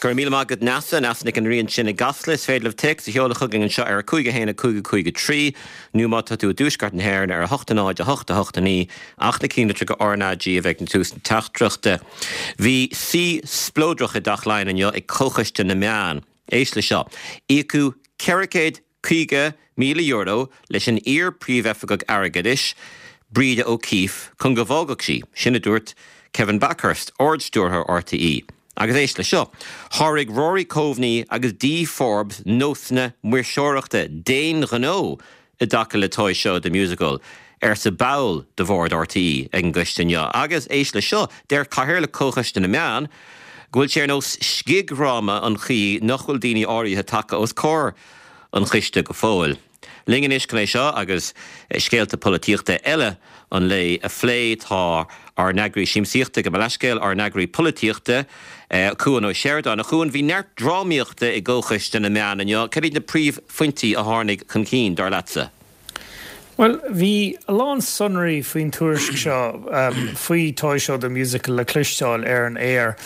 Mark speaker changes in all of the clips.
Speaker 1: Go raibh míle maith agat Neasa, Neasa Nic an Rí ansin i gCasla. Is féidir libh téacs a sheoladh chugainn anseo ar 5 1 5 5 3 nó má tá tú i dtuaisceart na hÉireann ar 8 0 8 8 9 ach na cinnlitreacha RnaG a bheith ag tús na teachtaireachta. Bhí suí spleodrach i dTeach Laighean inniu ag Comhchoiste na Meán. Éist le seo. Íocadh €450,000 leis an iar-Phríomhoifigeach Airgeadais, Breda O'Keeffe, chun go bhfágfadh sí, sin a dúirt Kevin Bakhurst, Ard-Stiúrthóir RTÉ. Agus éist le seo, Sháraigh Rory Coveney agus Dee Forbes nósanna maoirseoireachta d'aon ghnó i dtaca le Toy Show The Musical, arsa ball de bhord RTÉ ag an gcoiste inniu. Agus éist le seo, deir Cathaoirleach Chomhchoiste na Meán go bhfuil sé ar nós scigdhráma an chaoi nach bhfuil daoine áirithe tagtha os comhair an choiste go fóill. Linn anois chun é seo agus scéalta polaitíochta eile an lae a phlé tá ár n-eagraí siamsaíochta, gabh mo leithscéal, ár n-eagraí polaitíochta, Cuan Ó Seireadáin. A Chuain, bhí neart drámaíochta i gComhchoiste na Meán inniu. Cad iad na príomhphointí a tháinig chun cinn, dar leatsa?
Speaker 2: Bhuel, bhí a lán sonraí faoin tuairisc seo faoi Toy Show The Musical le cloisteáil ar an aer,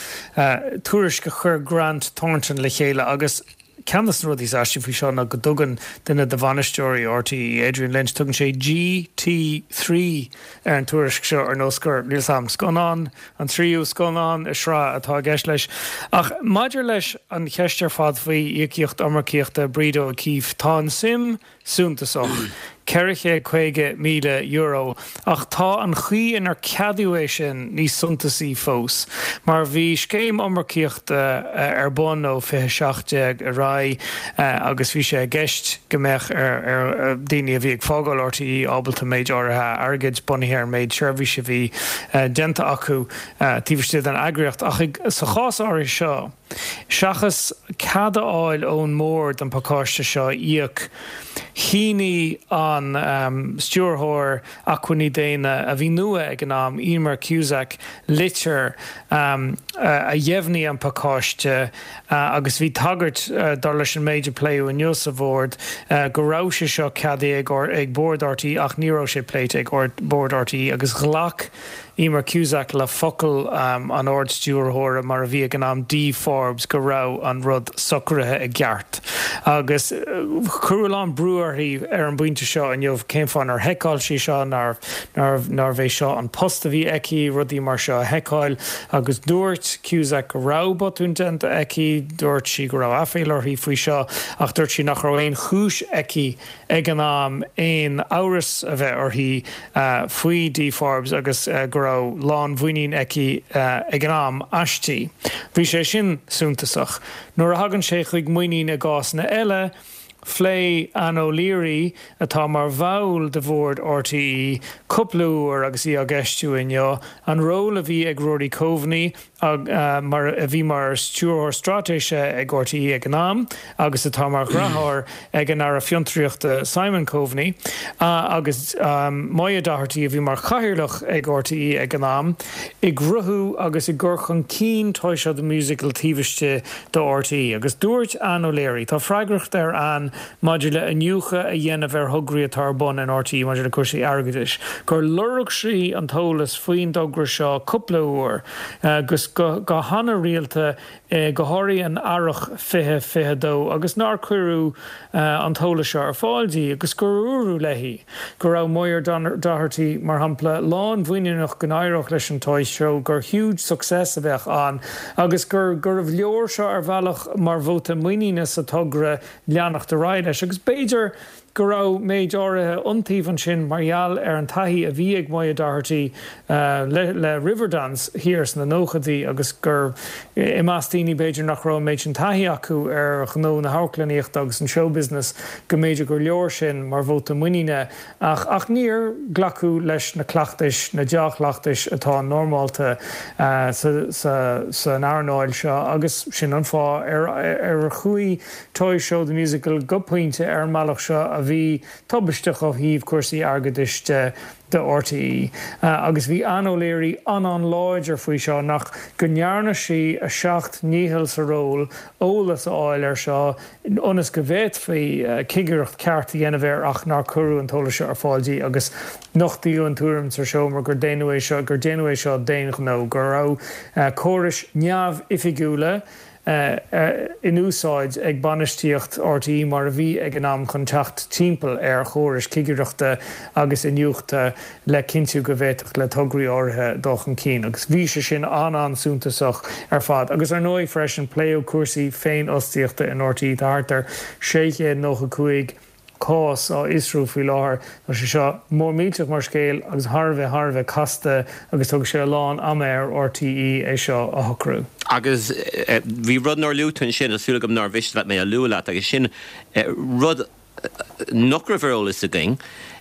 Speaker 2: tuairisc a chuir Grant Thornton le chéile agus, Ceann de na rudaí is aistí faoi seo ná go dtugann duine de bhainisteoirí RTÉ, Adrian Lynch, tugann sé GT3 ar an tuairisc seo ar nós gur, níl 's a'm, scannán, an tríú scannán i sraith atá i gceist leis. Ach maidir leis an cheist ar fad faoi íocaíocht iomarcaíochta Breda O'Keeffe, tá an suim suntasach, €450,000, ach tá an chaoi inar ceadaíodh é sin níos suntasaí fós, mar bhí scéim iomarcaíochta ar bun ó 2017 ar aghaidh agus bhí sé i gceist go mbeadh ar dhaoine a bhí ag fágáil RTÉ ábalta méid áirithe airgid, bunaithe ar an méid seirbhíse a bhí déanta acu taobh istigh den eagraíocht. Ach sa chás áirithe seo, Seachas cead a fháil ón mbord an pacáiste seo a íoc, shínigh an Stiúrthóir Acmhainní Daonna, a bhí nua ag an am, Emer Cusack, litir a dheimhnigh an pacáiste agus bhí tagairt, dar leis an méid a pléadh inniu sa bhord, go raibh sé seo ceadaithe ag Bord RTÉ ach ní raibh sé pléite ag Bord RTÉ agus ghlac Emer Cusack le focal an Ard-Stiúrthóra, mar a bhí ag an am, Dee Forbes, go raibh an rud socraithe i gceart. Agus cuireadh a lán brú uirthi ar an bpointe seo inniu, cén fáth nár sheiceáil sí seo, nárbh é seo an post a bhí aici, rudaí mar seo a sheiceáil. Agus dúirt Cusack go raibh botún déanta aici, dúirt sí go raibh aiféala uirthi faoi seo, ach dúirt sí nach raibh aon chúis aici ag an am aon amhras a bheith uirthi faoi Dee Forbes agus go raibh lánmhuinín aici ag an am aisti. Bhí sé sin suntasach. Nuair a thagann sé chuig muinín i gcásanna eile, phléigh Ann O'Leary, atá mar bhall de bhord RTÉ, cúpla uair agus í á gceistiú inniu, an ról a bhí ag Rory Coveney, mar a bhí mar Stiúrthóir Straitéise ag RTÉ ag an am agus atá mar dheartháir ag an Aire Fiontraíochta Simon Coveney, agus Moya Doherty a bhí mar Chathaoirleach ag RTÉ ag an am, i gcruthú agus i gcur chun cinn Toy Show The Musical taobh istigh de RTÉ. Agus dúirt Ann O'Leary, tá freagracht ar Ann maidir le iniúchadh a dhéanamh ar thograí atá ar bun in RTÉ maidir le cúrsaí airgeadais, gur lorg sí an t-eolas faoin dtogra seo cúpla uair agus go han-rialta, go háirithe in earrach 2022, agus nár cuireadh an t-eolas seo ar fáil di agus gur dúradh léi go raibh Moya Doherty, mar shampla, lánmhuiníneach go n-éireodh leis an Toy Show, gur huge success a bheadh ann agus gur gurbh leor seo ar bhealach mar vóta muiníne sa togra leanacht ar aghaidh leis. Agus b'fhéidir go raibh méid áirithe iontaoibh ansin mar gheall ar an taithí a bhí ag Moya Doherty le Riverdance thiar sna nóchaidí agus gur i measc daoine b'fhéidir nach raibh an méid sin taithí acu ar ghnó na hamharclannaíochta agus an showbusiness go mb'fhéidir gur leor sin mar vóta muiníne ach ach níor glacadh leis na cleachtais, na dea-chleachtais atá normálta san earnáil seo agus sin an fáth ar ar chuaigh Toy Show The Musical go pointe ar an mbealach seo a bhí tubaisteach ó thaobh cúrsaí airgeadais de do RTÉ. Agus bhí Ann O'Leary an-an-láidir faoi seo nach go ndearna sí a seacht ndícheall sa ról eolas a fháil air seo ionas go bhféadfaí cigireacht ceart a dhéanamh air ach nár cuireadh an t-eolas seo ar fáil di agus nochtaíodh an tuairim sa seomra gur déanadh é seo gur déanadh é seo d'aon ghnó, go raibh córais neamhoifigiúla. In úsáid ag bainistíocht RTÉ mar a bhí ag an am chun teacht timpeall ar chórais cigireachta agus iniúchta le cinntiú go bhféadfadh le tograí áirithe dul chun cinn agus bhí sé sin an-an-suntasach ar fad. Agus ar ndóigh freisin pléadh cúrsaí féinfhostaíochta in RTÉ. Tá thart ar 695 cás á fhiosrú faoi láthair. Tá sé seo mór millteach mar scéal agus thar a bheith, thar a bheith casta agus tógfaidh sé a lán ama ar RTÉ é seo a shocrú.
Speaker 1: Agus bhí rud nár luaigh tú ansin, tá súil agam nár mhiste leat mé a lua leat, agus sin rud nach raibh ar eolas againn,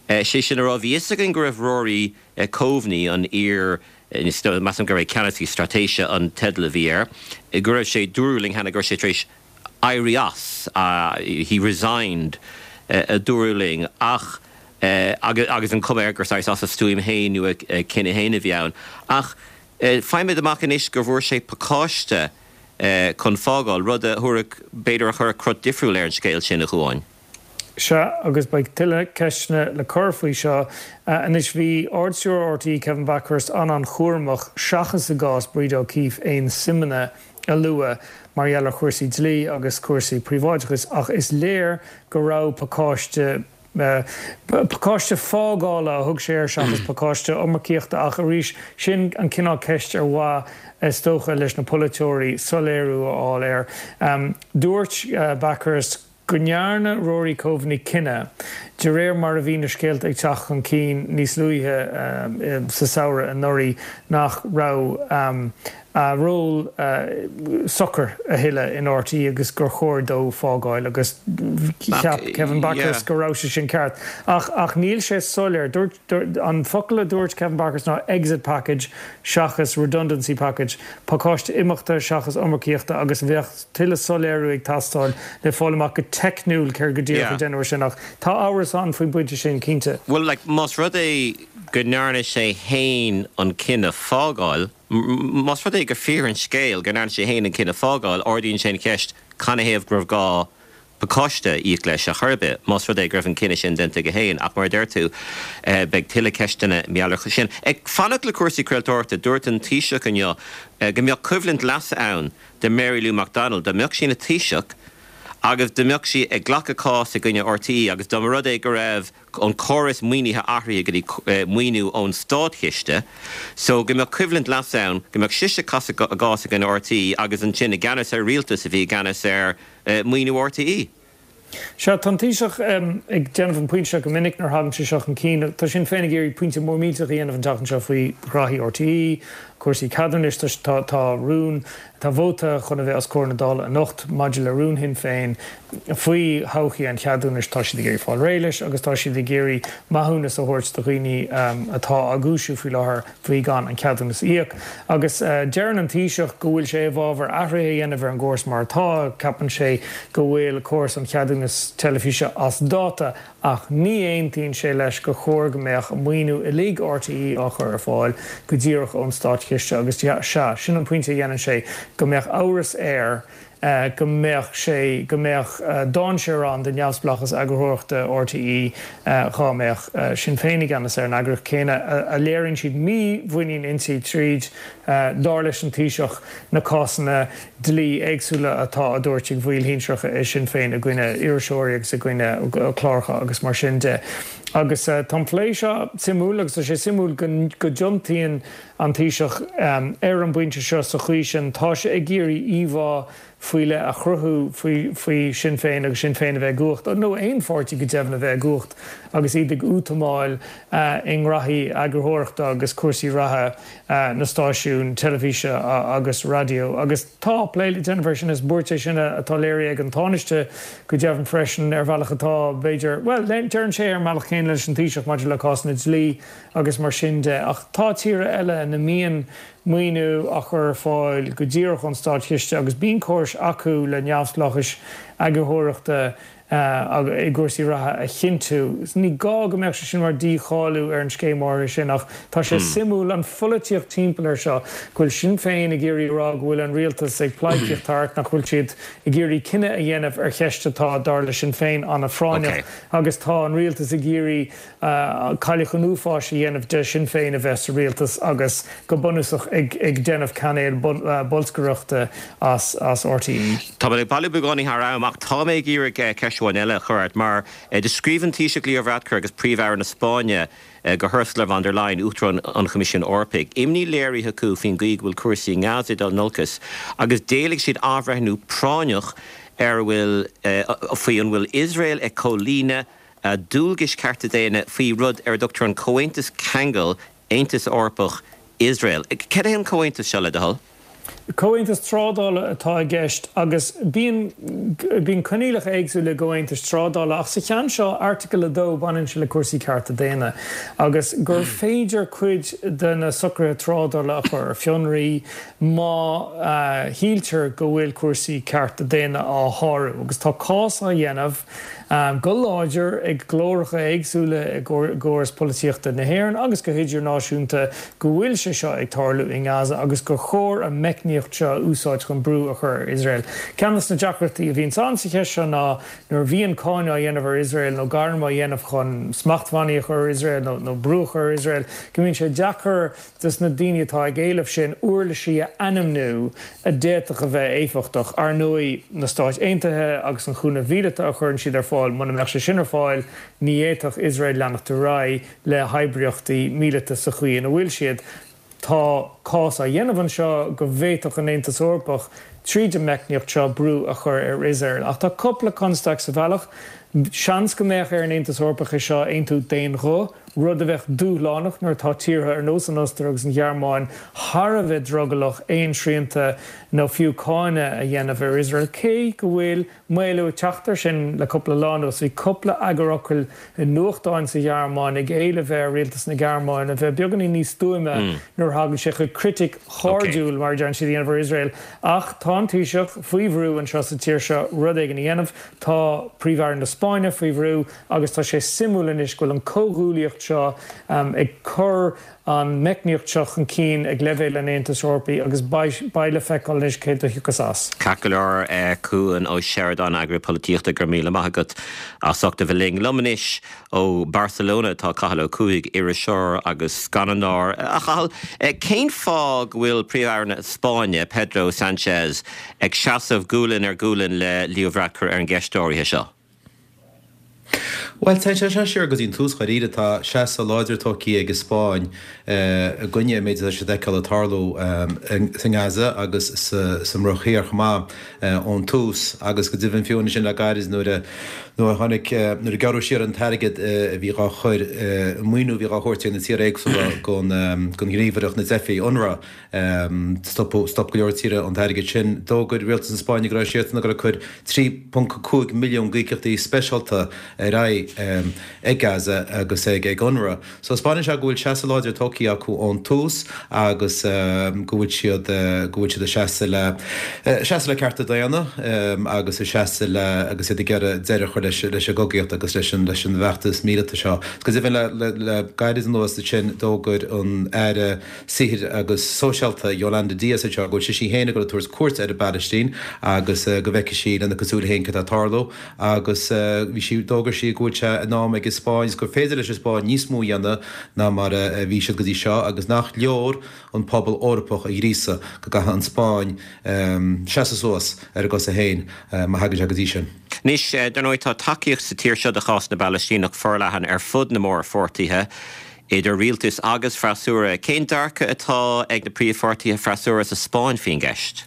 Speaker 1: sé sin a rá, bhí fhios againn go raibh Rory Coveney, an iar, measaim gurbh é Ceannasaí Straitéise an teideal a bhí air, go raibh sé, dúradh linn cheana go raibh sé tar éis éirí as, he resigned, a dúradh linn, ach, agus an chuma air gur saghas as a stuaim féin nó a chinneadh féin a bhí ann. Ach faighimid amach anois go bhfuair sé pacáiste chun fágáil, rud a thabharfadh, b'fhéidir a chuirfeadh crot difriúil ar an scéal sin, a Chuáin.
Speaker 2: Sea, agus beidh tuilleadh ceisteanna le cur faoi seo. Anois, bhí Ard-Stiúrthóir RTÉ, Kevin Bakhurst, an-an-chúramach, seachas i gcás Breda O'Keeffe, aon suimeanna a lua mar gheall ar chúrsaí dlí agus cúrsaí príobháideachais, ach is léir go raibh pacáiste, pacáiste fágála a thug sé air seachas pacáiste iomarcaíochta, ach arís, sin an cineál ceist ar mhaith, is dócha, leis na polaiteoirí soiléiriú a fháil air. Dúirt Bakhurst go ndearna Rory Coveney cinneadh, de réir mar a bhí na scéalta ag teacht chun cinn níos luaithe sa samhradh anuraidh, nach raibh a ról socair a thuilleadh in RTÉ agus gur chóir dó fágáil agus cheap Kevin Bakhurst go raibh sé sin ceart. Ach níl sé soiléir. Dúirt, an focal a dúirt Kevin Bakhurst ná exit package seachas redundancy package, pacáiste imeachta seachas iomarcaíochta agus bheadh tuilleadh soiléiriú ag teastáil le fáil amach go teicniúil céard go díreach a deineadh sin ach tá amhras ann faoin bpointe sin, cinnte.
Speaker 1: Bhuel, like, más rud é go ndearna sé fhéin an cinneadh fágáil, más rud é gur fíor an scéal go ndearna sé fhéin an cinneadh fágáil, ardaíonn sé an cheist canathaobh go raibh gá pacáiste a íoc leis ar chor ar bith, más rud é go raibh an cinneadh sin déanta aige féin. Ach mar a deir tú, beidh tuilleadh ceisteanna mar gheall air sin. Ag fanacht le cúrsaí craoltóireachta, dúirt an Taoiseach inniu go mbeadh coimhlint leasa ann do Mary Lou McDonald dá mbeadh sí ina Taoiseach agus dá mbeadh sí ag glacadh cás i gcoinne RTÉ agus dá mba rud é go raibh an córas maoinithe athraithe go dtí maoiniú ón státchiste so go mbeadh coimhlint leasa ann go mbeadh sise ag casadh a gcás i gcoinne RTÉ agus ansin i gceannas ar rialtas a bhí i gceannas ar maoiniú RTÉ.
Speaker 2: Sea, tá an Taoiseach ag déanamh an pointe seo go minic nuair a thagann sé seo chun cinn. Tá Sinn Féin ag iarraidh pointe mór millteach a dhéanamh an tseachtain seo faoi ghraithí RTÉ, cúrsaí ceadúnais. Tá tá rún, tá vóta chun a bheith os comhair na Dála anocht maidir le rún Shinn Féin faoi thodhchaí an cheadúnais. Tá siad ag iarraidh fáil réidh leis agus tá siad ag iarraidh maithiúnas a thabhairt do dhaoine atá á gcúisiú faoi láthair faoi gan an ceadúnas a íoc. Agus deireann an Taoiseach go bhfuil sé i bhfabhar athruithe a dhéanamh ar an gcóras mar atá, ceapann sé go bhfuil córas an cheadúnas teilifíse as dáta ach ní aontaíonn sé leis gur chóir go mbeadh maoiniú uilig RTÉ á chur ar fáil go díreach ón státchiste agus sea, sin an pointe a dhéanann sé, go mbeadh amhras air go mbeadh sé, go mbeadh dainséar ann do neamhspleáchas eagarthóireachta RTÉ dhá mbeadh Sinn Féin i gceannas ar an eagraíocht chéanna a léiríonn siad mímhuinín inti tríd, dar leis an Taoiseach, na cásanna dlí éagsúla atá á dtabhairt ag bhaill shinsearacha i Sinn Féin i gcoinne iriseoirí agus i gcoinne cláracha agus mar sin de. Agus tá an plé seo suimiúil agus tá sé suimiúil go dtiontaíonn an Taoiseach ar an bpointe seo sa chaoi sin. Tá sé ag iarraidh íomhá faoi leith a chruthú faoi Sinn Féin agus Sinn Féin a bheith i gcumhacht, nó aon pháirtí go deimhin a bheith i gcumhacht agus iad ag útamáil i ngraithí eagarthóireachta agus cúrsaí reatha na stáisiún teilifíse agus raidió. Agus tá plé le déanamh air sin. Is buairt é sin atá léirithe ag an Tánaiste go deimhin freisin ar bhealach atá, b'fhéidir, bhuel, deireann sé ar an mbealach céanna leis an Taoiseach maidir le cásanna dlí agus mar sin de. Ach tá tíortha eile ina mbíonn maoiniú á chur ar fáil go díreach ón státchiste agus bíonn córais acu le neamhspleáchais eagarthóireachta. I gcúrsaí reatha a chinntiú. Ní gá go mbeadh sé sin mar dícháiliú ar an scéim áirithe sin ach tá sé suimiúil an pholaitíocht timpeall air seo, go bhfuil Sinn Féin ag iarraidh a rá go bhfuil an rialtas ag pleidhcíocht thart, nach bhfuil siad ag iarraidh cinneadh a dhéanamh ar cheist atá, dar le Sinn Féin, an-phráinneach agus tá an rialtas ag iarraidh cailleach an uafáis a dhéanamh de Shinn Féin a bheith sa rialtas agus go bunúsach ag déanamh cainéal bolscaireachta as RTÉ.
Speaker 1: Tá mé ag bailiú beagáinín thar am ach tá mé ag iarraidh ceist amháin eile a chur ort mar do scríobh an Taoiseach Leo Varadkar agus Príomh-Aire na Spáinne go hUrsula von der Leyen, Uachtarán an Choimisiúin Eorpaigh, imní léirithe acu faoin gcaoi go bhfuil cúrsaí i nGaza ag dul in olcas agus d'éiligh siad athbhreithniú práinneach ar a bhfuil faoi an bhfuil Iosrael ag comhlíonadh a dualgais cearta daonna faoi rud ar a dtugtar an Comhaontas Ceangail Aontas Eorpach, Iosrael. Cad é an comhaontas seo, le do thoil?
Speaker 2: Comhaontas trádála atá i gceist agus bíonn bíonn coinníollacha éagsúla i gcomhaontais trádála ach sa cheann seo, Airteagal 2, baineann sé le cúrsaí cearta daonna agus gur féidir cuid de na socruithe trádála a chur ar fionraí má shíltear go bhfuil cúrsaí cearta daonna á shárú agus tá cás á dhéanamh go láidir ag glóracha éagsúla i gcóras polaitíochta na hÉireann agus go hidirnáisiúnta go bhfuil sé seo ag tarlú i nGaza agus gur chóir an meicníocht seo a úsáid chun brú a chur ar Iosrael. Ceann de na deacrachtaí a bhíonns ann sa cheist seo ná nuair a bhíonn cáineadh á dhéanamh ar Iosrael nó gairm á dhéanamh chun smachtbhannaí a chur ar Iosrael nó brú a chur ar Iosrael go mbíonn sé deacair dos na daoine atá ag éileamh sin uirlisí a ainmniú a d'fhéadfadh a bheith éifeachtach. Ar ndóigh, na Stáit Aontaithe agus an chúnamh mhíleata a chuireann siad ar fáil, muna mbeadh sé sin ar fáil, ní fhéadfadh Iosrael leanacht ar aghaidh le hoibríochtaí míleata sa chaoi ina bhfuil siad. Tá cás á dhéanamh anseo go bhféadfadh an Aontas Eorpach, tríd an meicníocht seo, brú a chur ar Iosrael. Ach tá cúpla constaic sa bhealach. Seans go mbeadh ar an Aontas Eorpach é seo a aontú d'aon ghuth. rud a bheadh dúshlánach nuair atá tíortha ar nós an Ostair agus an Ghearmáin thar a bheith drogallach aon srianta nó fiú cáineadh a dhéanamh ar Iosrael, cé go bhfuil maolú ag teacht air sin le cúpla lá anuas. Bhí cúpla eagarfhocal i nuachtáin sa Ghearmáin ag éileamh ar rialtas na Gearmáine a bheith beagáinín níos stuaime nuair a thagann sé chuig critic chairdiúil, mar a deireann siad, a dhéanamh ar Iosrael. Ach tá an Taoiseach faoi bhrú anseo sa tír seo rud éigin a dhéanamh. Tá Príomh-Aire na Spáinne faoi bhrú. Agus tá sé suimiúil anois go bhfuil an comhghuaillíocht seo ag cur an meicníocht seo chun cinn ag leibhéal an Aontais Eorpaigh agus beidh le feiceáil anois céard a thiocfas as.
Speaker 1: Ceart go leor, Cuan Ó Seireadáin, Eagarthóir Polaitíochta, go raibh míle maith agat as ucht a bheith linn. Liom anois ó Barcelona atá Cathal Ó Cuaig, iriseoir agus scannánóir. A Chathail, cén fáth go bhfuil Príomh-Aire na Spáinne, Pedro Sanchez, ag seasamh gualainn ar ghualainn le Leo Varadkar ar an gceist áirithe seo?
Speaker 3: Bhuel, téann sé seo siar go dtí an tús dháiríre. Tá seasamh láidir tógtha ag an Spáinn i gcoinne an méid atá siad a fheiceáil ag tarlú sa nGaza agus sa mBruach Thiar chomh maith ón tús agus go deimhin fiú ansin le gairid nuair a nuair a tháinig nuair a gearradh siar an t-airgead a bhí dhá chur an maoiniú a bhí dhá thabhairt ag na tíortha éagsúla don ghníomhaireacht na dteifigh, UNRWA. Stop go leor tíortha an t-airgead sin. D'fhógair rialtas na Spáinne go raibh siadsan ag dul ag cur 3.5 milliún d'íocaíochtaí speisialta ar aghaidh ag Gaza agus ag UNRWA. So 'spáineann sé go bhfuil seasamh láidir tógtha acu ón tús agus go bhfuil siad go bhfuil siad ag seasamh le seasamh le cearta daonna agus ag seasamh le agus iad ag iarraidh deireadh a chur leis leis an gcogaíocht agus leis an leis an bhfeachtas míleata seo. Go deimhin le le gairid anuas ansin d'fhógair an Aire Saothair agus Sóisialta Yolanda Díaz anseo go bhfuil sise féin ag dul ag tabhairt cuairt ar an bPalaistín agus go bhfeicfidh sí lena cuid súile féin cad tá ag tarlú agus bhí sí d'fhógair sí go bhfuil sé in am ag an Spáinn agus gur féidir leis an Spáinn níos mó a dhéanamh ná mar a bhí siad go dtí seo agus nach leor an pobal Eorpach a ghríosadh go gcaithfidh an Spáinn seasamh suas ar a gcosa féin má thagann sé go dtí sin.
Speaker 1: Anois, dar ndóigh, tá tacaíocht sa tír seo do chás na bPalaistíneach forleathan ar fud na mórpháirtithe. Idir rialtas agus freasúra, cén dearcadh atá ag na príomhpháirtithe freasúra sa Spáinn faoin gceist?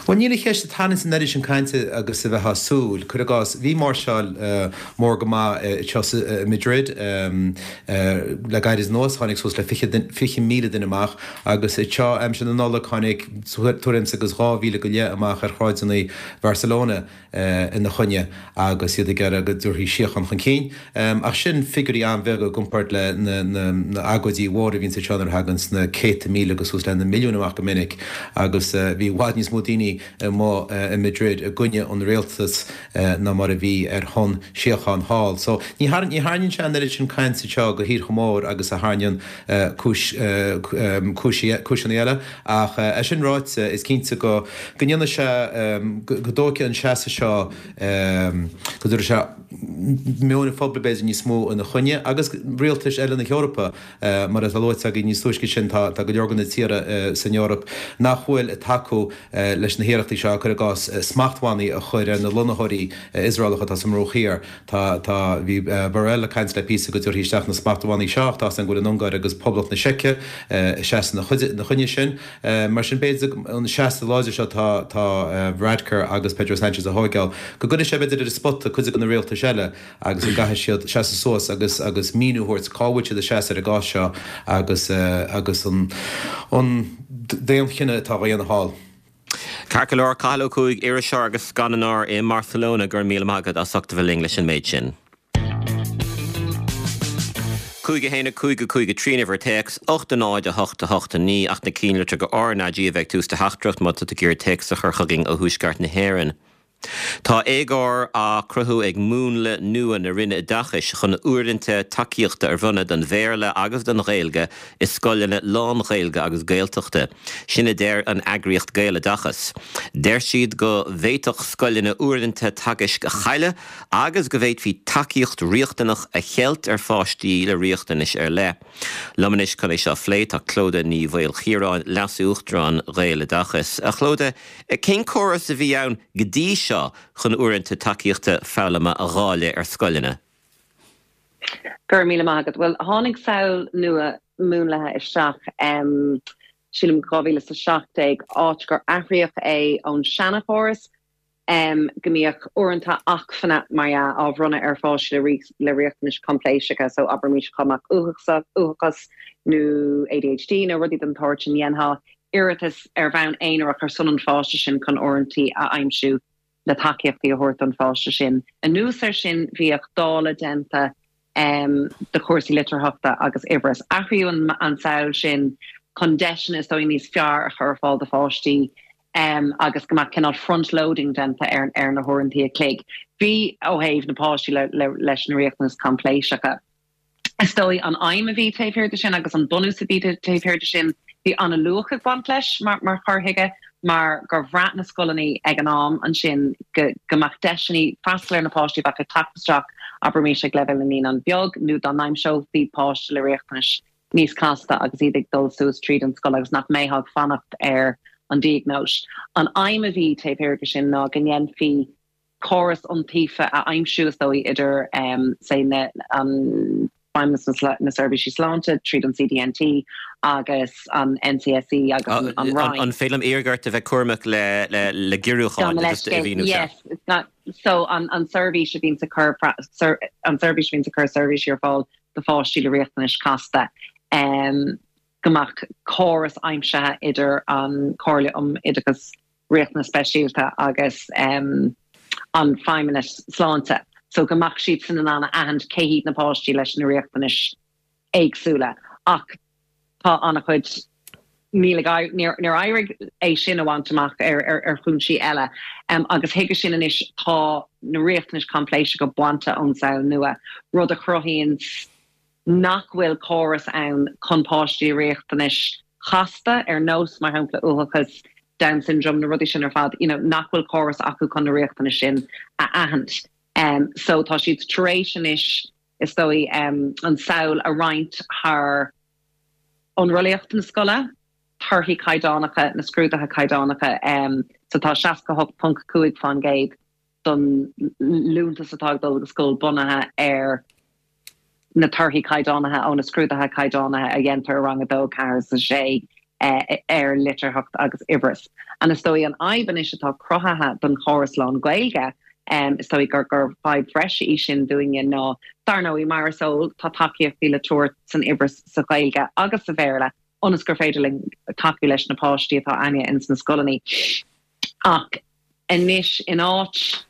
Speaker 3: Bhuel, níl an cheist ag tarraingt an oiread sin cainte agus a bheifeá ag súil. Cuir i gcás, bhí máirseáil mór go maith anseo i Madrid le gairid anuas, tháinig suas le 20,000 duine amach agus anseo aimsir na Nollag tháinig tuairim is agus 2,000 go leith amach ar shráideanna Bharcelona. ina choinne agus iad ag iarraidh go dtabharfaí síocháin chun cinn. Ach sin figiúirí an-bheaga i gcomparáid le na agóidí mhóra a bhíonns anseo nuair a thaganns na céadta míle agus suas le na milliúin amach go minic agus bhí i bhfad níos mó. mó daoine amuigh i Madrid i gcoinne an rialtas ná mar a bhí ar shon síocháin thall. So ní tharraingíonn sé an oiread sin cainte anseo go thíortha mór agus a tharraingíonn cúis cúiseanna eile ach é sin ráite is cinnte go go ndéanfaidh sé go dtógfaidh an seasamh seo go dtabharfaidh sé meon an phobail b'fhéidir níos mó ina choinne agus rialtais eile na hEorpa. Mar atá luaite againn níos túisce sin, tá go leor de na tíortha san Eoraip nach bhfuil ag tacú leis na hiarrachtaí seo, cuir i gcás, smachtbhannaí a chur ar na lonnaitheoirí Iosraelacha atá sa mBruach Thiar. Tá, tá, bhí Borrell ag caint le píosa go dtabharfaí isteach na smachtbhannaí seo ach tá a fhios againn go bhfuil an Ungáir agus Poblacht na Seice ag seasamh ina choinne sin. Mar sin, b'fhéidir an seasamh láidir seo atá, tá Varadkar agus Pedro Sanchez a thóigeáil, go gcuirfidh sé b'fhéidir ar an spota cuid de na rialtais eile. agus go gcaithfidh siad seasamh suas agus agus míniú a thabhairt cá bhfuil siad ag seasamh ar an gcás seo agus agus an an daonchinneadh atá á dhéanamh thall.
Speaker 1: Ceart go leor, Cathal Ó Cuaig, iriseoir agus scannánóir i mBarcelona, go raibh míle maith agat as ucht a bheith linn leis an méid sin. 5 1 5 5 3 an uimhir téacs, 8 0 8 8 9 ach na cinnlitreacha go RnaG a bheidh ag tús do theachtaireacht má tá tú ag iarraidh téacs a chur chugainn ó thuaisceart na hÉireann. Tá éagóir á cruthú ag múnla nua na Roinne Oideachais chun uaireanta tacaíochta a bhronnadh don Bhéarla agus don Ghaeilge i scoileanna lán-Ghaeilge agus Gaeltachta. Sin a deir an eagraíocht Gaeloideachas. Deir siad go bhféadfadh scoileanna uaireanta teagaisc a chailleadh agus go bhféadfaí tacaíocht riachtanach a cheilt ar pháistí le riachtanais ar leith. Liom anois chun é seo a phlé tá Clodagh Ní Mhaoilchiaráin, Leas-Uachtarán Ghaeloideachas. A Chlodagh, Cén córas a bhí ann go dtí seo chun uaireanta tacaíochta foghlama a dháileadh ar scoileanna?
Speaker 4: Go raibh míle maith agat. Bhuel, tháinig samhail nua múnlaithe isteach, sílim 2017, áit gur athraíodh é ón seanachóras go mbíodh uaireanta acmhainne, mar dhea, á bhronnadh ar pháistí le riachtanais choimpléiseacha, so abraimis dhá mbeadh uathachas nó ADHD nó rudaí den tsórt sin, dhéanfá iarratas ar bhonn aonarach ar son an pháiste sin chun uaireanta a aimsiú le tacaíochtaí a thabhairt don pháiste sin. Anuas air sin, bhíodh dáileadh déanta de chúrsaí litearthachta agus uimhreas. Athraíodh an tsamhail sin chun deiseanna is dóigh níos fearr a chur ar fáil do pháistí agus go mbeadh cineál front-loading déanta ar na huaireanta a chloig. Bhí ó thaobh na páistí leis na riachtanais choimpléiseacha. Is dóigh an aidhm a bhí taobh thiar de sin agus an bunús a bhí taobh thiar de sin, bhí an-luach ag baint leis mar chur chuige mar gur bhraith na scoileanna ag an am ansin go go mbeadh deiseanna freastal ar na páistí a bheadh ag teacht isteach, abraimis ag leibhéal na naíonán beag nó dá n-aimseofaí páiste le riachtanais níos casta agus iad ag dul suas tríd an scoil agus nach mbeifeá ag fanacht ar an diagnóis. An aidhm a bhí taobh thiar de sin ná go ndéanfaí córas iontaofa a aimsiú, is dóigh, idir, say, na, an Feidhmeannas na Seirbhísí Sláinte tríd an CDNT agus an NCSE agus an Roinn.
Speaker 1: An féidir liom iarraidh ort a bheith cúramach le, le, le giorrúcháin just a mhíniú
Speaker 4: ceart? Yes, so an, an seirbhís a bhíonns ag cur, an seirbhís a bhíonns ag cur seirbhísí ar fáil do pháistí le riachtanais chasta, go mbeadh córas aimsithe idir an Chomhairle um Oideachas Riachtanas Speisialta agus an Feidhmeannas Sláinte so go mbeadh siadsan in ann a aithint cé hiad na páistí leis na riachtanais éagsúla ach tá an-chuid níl ag níor éirigh é sin a bhaint amach ar ar chúinsí eile agus chuige sin anois tá na riachtanais choimpléiseacha bainte ón samhail nua rud a chruthaíonn nach bhfuil córas ann chun páistí le riachtanais chasta, ar nós, mar shampla, uathachas, Down syndrome, na rudaí sin ar fad, you know, nach bhfuil córas acu chun na riachtanais sin a aithint. So tá siad tar éis anois, is dóigh, an tsamhail a roinnt thar iontrálaíocht na scoile, torthaí caighdeánacha, na scrúduithe caighdeánacha. So tá 68.5% don liúntas atá ag dul go scoil bunaithe ar na torthaí caighdeánaithe ó na scrúduithe caighdeánaithe a dhéantar i rang 2, 4 is 6 ar litearthacht agus uimhreas. And is dóigh an fhadhb anois atá cruthaithe don chóras lán-Ghaeilge, is dóigh gur gur fadhb bhreise í sin dúinne ná, dar ndóigh, mar is eol, tá tacaíochtaí le tabhairt san uimhreas sa Ghaeilge agus sa Bhéarla ionas gur féidir linn tacú leis na páistí atá againne ins na scoileanna. Ach anois, in áit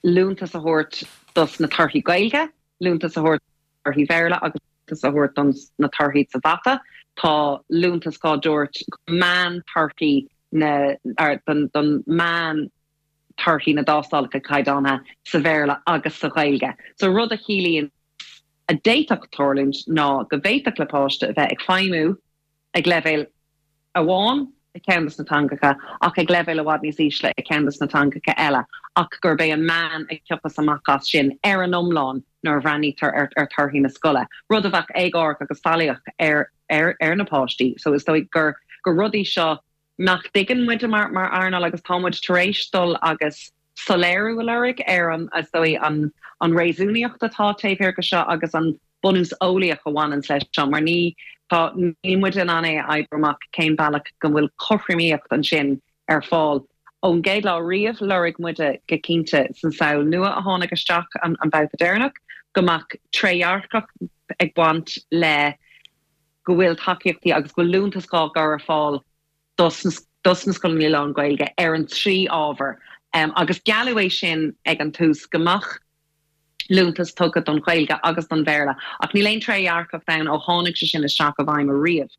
Speaker 4: liúntas a thabhairt dos na torthaí Gaeilge, liúntas a thabhairt torthaí Bhéarla agus liúntas a thabhairt don na torthaí sa mhata, tá liúntas á dtabhairt meán torthaí. na don don meán torthaí na dtástálacha caighdeánaithe sa Bhéarla agus sa Ghaeilge. So rud a chiallaíonn a d'fhéadfadh tarlúint ná go bhféadfadh le páiste a bheith ag feidhmiú ag leibhéal amháin i gceann de na teangacha ach ag leibhéal i bhfad níos ísle i gceann de na teangacha eile ach gurb é an meán a thiocfas amach as sin ar an iomlán nuair a bhreathnaítear ar ar torthaí na scoile, rud a bheadh éagórach agus faillíoch ar ar ar na páistí. So is dóigh gur gur rudaí seo nach dtuigeann muide mar mar earnáil agus tá muid tar éis dul agus soiléiriú a lorg ar an, is dóigh, an an réasúnaíocht atá taobh thiar de seo agus an bunús eolaíoch a bhaineanns leis seo mar ní, tá, níl muid in ann é a oibriú amach cén bealach go bhfuil cothromaíocht ansin ar fáil. Ón gcéad lá riamh lorg muide go cinnte san samhail nua a tháinig isteach an an babhta deireanach go mbeadh trédhearcacht ag baint le go bhfuil tacaíochtaí agus go bhfuil liúntas á gcur ar fáil dos na scoileanna lán-Ghaeilge ar an trí ábhar agus gealladh é sin ag an tús go mbeadh liúntas tugtha don Ghaeilge agus don Bhéarla ach níl aon trédhearcacht ann ó tháinig sé sin isteach i bhfeidhm ariamh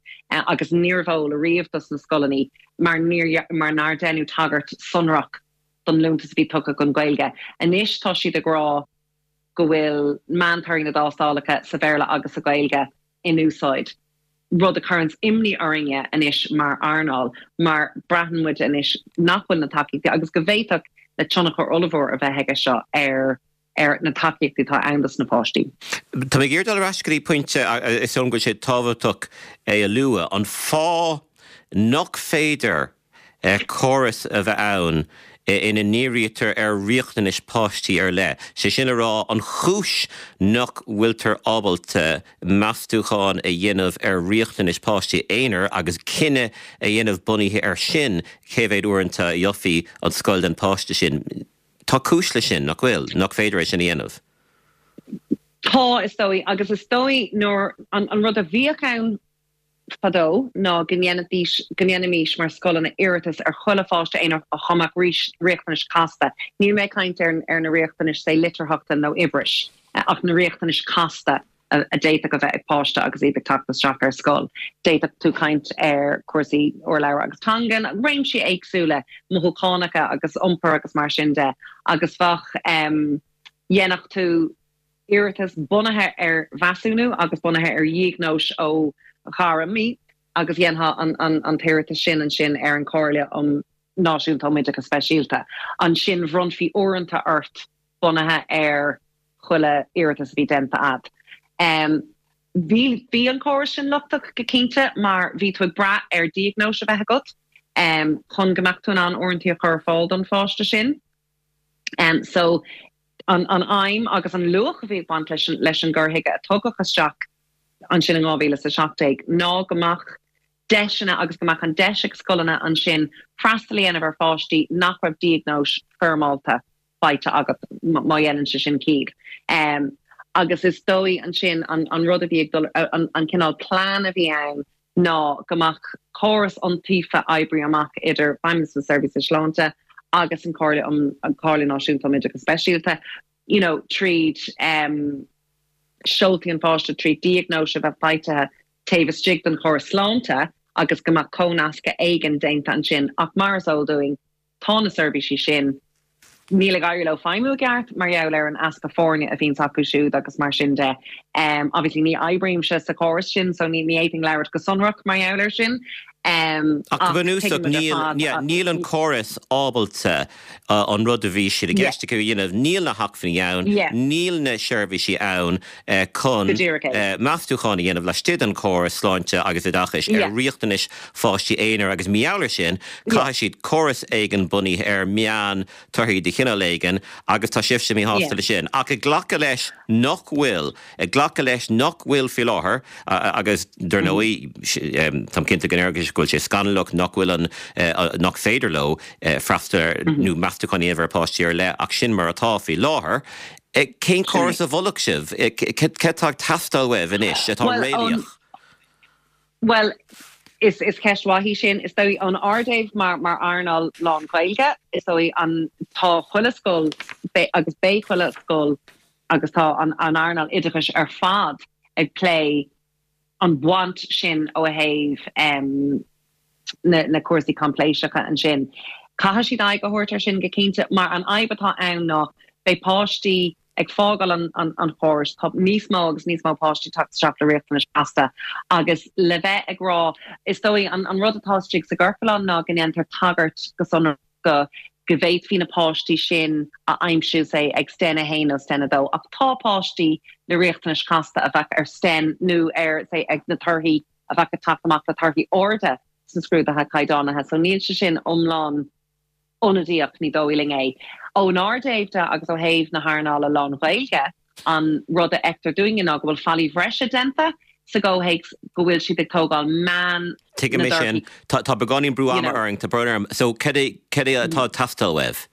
Speaker 4: agus níorbh eol ariamh dos na scoileanna mar níor mar nár deineadh tagairt sonrach don liúntas a bhí tugtha don Ghaeilge. Anois tá siad ag rá go bhfuil meántorthaí na dtástálacha sa Bhéarla agus sa Ghaeilge in úsáid, rud a chuireanns imní orainne anois mar earnáil mar braitheann muid anois nach bhfuil na tacaíochtaí agus go bhféadfadh le tionchar ollmhór a bheith aige seo ar ar na tacaíochtaí atá ann dos na páistí.
Speaker 1: Tá mé ag iarraidh dul ar ais go dtí pointe, is dóigh liom go bhfuil sé tábhachtach é a lua, an fáth nach féidir córas a bheith ann ina ndírítear ar riachtanais páistí ar leith, sé sin le rá, an chúis nach bhfuiltear ábalta meastúchán a dhéanamh ar riachtanais páistí aonair agus cinneadh a dhéanamh bunaithe air sin cé mhéad uaireanta a gheofaí an scoil don pháiste sin. Tá cúis leis sin, nach bhfuil? Nach féidir é sin a dhéanamh?
Speaker 4: Tá, is dóigh, agus is dóigh nuair, an rud a bhíodh ann fadó ná go ndéanfaidís, go ndéanfaimis mar scoileanna iarratas ar chuile pháiste aonair dá mbeadh riachtanais casta. Níl mé ag caint ar ar na riachtanais say litearthachta nó uimhris ach na riachtanais casta a d'fhéadfadh a bheith ag páiste agus iad ag teacht isteach ar scoil. D'fhéadfadh tú caint ar chúrsaí urlabhra agus teangan, réimsí éagsúla mothúchánacha agus iompair agus mar sin de agus bheadh, dhéanfadh tú iarratas bunaithe ar mheasúnú agus bunaithe ar dhiagnóis ó ghairmí agus dhéanfá an t-iarratas sin ansin ar an Chomhairle um Náisiúnta um Oideachas Speisialta. Ansin bhronnfaí uaireanta ort bunaithe ar chuile iarratas a bhí déanta a'd. Bhí bhí an córas sin lochtach go cinnte mar bhí tú ag brath ar diagnóis a bheith agat chun go mbeadh tú in ann uaireanta a chur ar fáil don pháiste sin. So an aidhm agus an luach a bhí ag baint leis leis an gcur chuige a tugadh isteach ansin in 2017 ná go mbeadh deiseanna agus go mbeadh an deis ag scoileanna ansin freastal a dhéanamh ar pháistí nach raibh diagnóis foirmeálta faighte agat, má dhéanann sé sin ciall. Agus is dóigh ansin an rud a bhí ag dul, an cineál plean a bhí ann ná go mbeadh córas iontaofa oibrithe amach idir Feidhmeannas na Seirbhíse Sláinte agus an Chomhairle um an Chomhairle Náisiúnta um Oideachas Speisialta, you know, tríd um, seoltaí an pháiste tríd diagnóis a bheith faighte taobh istigh den chóras sláinte agus go mbeadh comhnascadh éigin déanta ansin ach mar is eol dúinn Tá na seirbhísí sin, níl ag éirí leo feidhmiú i gceart mar gheall ar an easpa foirne a bhíonns acu siúd agus mar sin de. Obviously ní oibrímse sa chóras sin so ní fhéadfainn labhairt go sonrach mar gheall air sin
Speaker 1: Ach go bunúsach níl, níl an córas ábalta an rud a bhí siad i gceist acu a dhéanamh, níl na hacmhainní ann, níl na seirbhísí ann chun meastúchán a dhéanamh laistigh den chóras sláinte agus oideachais ar riachtanais pháistí aonair agus mar gheall air sin caithfidh siad córas éigin bunaithe ar meán torthaí de chineál éigin agus tá sibhse míshásta leis sin. Ach ag glacadh leis nach bhfuil, ag glacadh leis nach bhfuil faoi láthair agus dar ndóigh táim cinnte go ndéarfaidh go bhfuil sé scannalach nach bhfuil an, nach féidir leo freastal ar nó meastúchán a dhéanamh ar pháistí ar leith ach sin mar atá faoi láthair. Cén córas a mholfadh sibh? Cad atá ag teastáil uaibh anois atá réalaíoch?
Speaker 4: Bhuel, is is ceist mhaith í sin. Is dóigh ón ár dtaobh mar mar earnáil lán-Ghaeilge, is dóigh an tá chuile scoil agus beidh chuile scoil agus tá an an earnáil oideachais ar fad ag plé an bhaint sin ó thaobh. Na cúrsaí coimpléiseacha ansin. Caithfidh siad aghaidh a thabhairt ar sin go cinnte, mar an fhadhb atá ann ná beidh páistí ag fágáil an chórais, tá níos mó agus níos mó páistí ag teacht isteach le riachtanais chasta agus le bheith ag rá, is dóigh, an rud atá istigh sa gciorclán ná go ndéantar tagairt go sonrach go go bhféadfaí na páistí sin a aimsiú, say, ag Sten 1 nó Sten 2, ach tá páistí le riachtanais chasta a bheadh ar Sten nó ar, say, ag na torthaí a bheadh ag teacht amach le torthaí arda sna scrúduithe caighdeánaithe so níl sé sin iomlán ionadaíoch, ní dóigh linn é. Ónár dtaobh de agus ó thaobh na hearnála lán-Ghaeilge, an rud a fheictear dúinne ná go bhfuil faillí bhreise déanta sa gcomhthéacs go bhfuil siad ag tógáil meán
Speaker 1: Tuigim
Speaker 4: na
Speaker 1: é sin.
Speaker 4: dtorthaí
Speaker 1: Tá tá beagáinín brú
Speaker 4: you
Speaker 1: ama
Speaker 4: know.
Speaker 1: orainn, tá brón orm. So cad é cad é atá ag teastáil uaibh?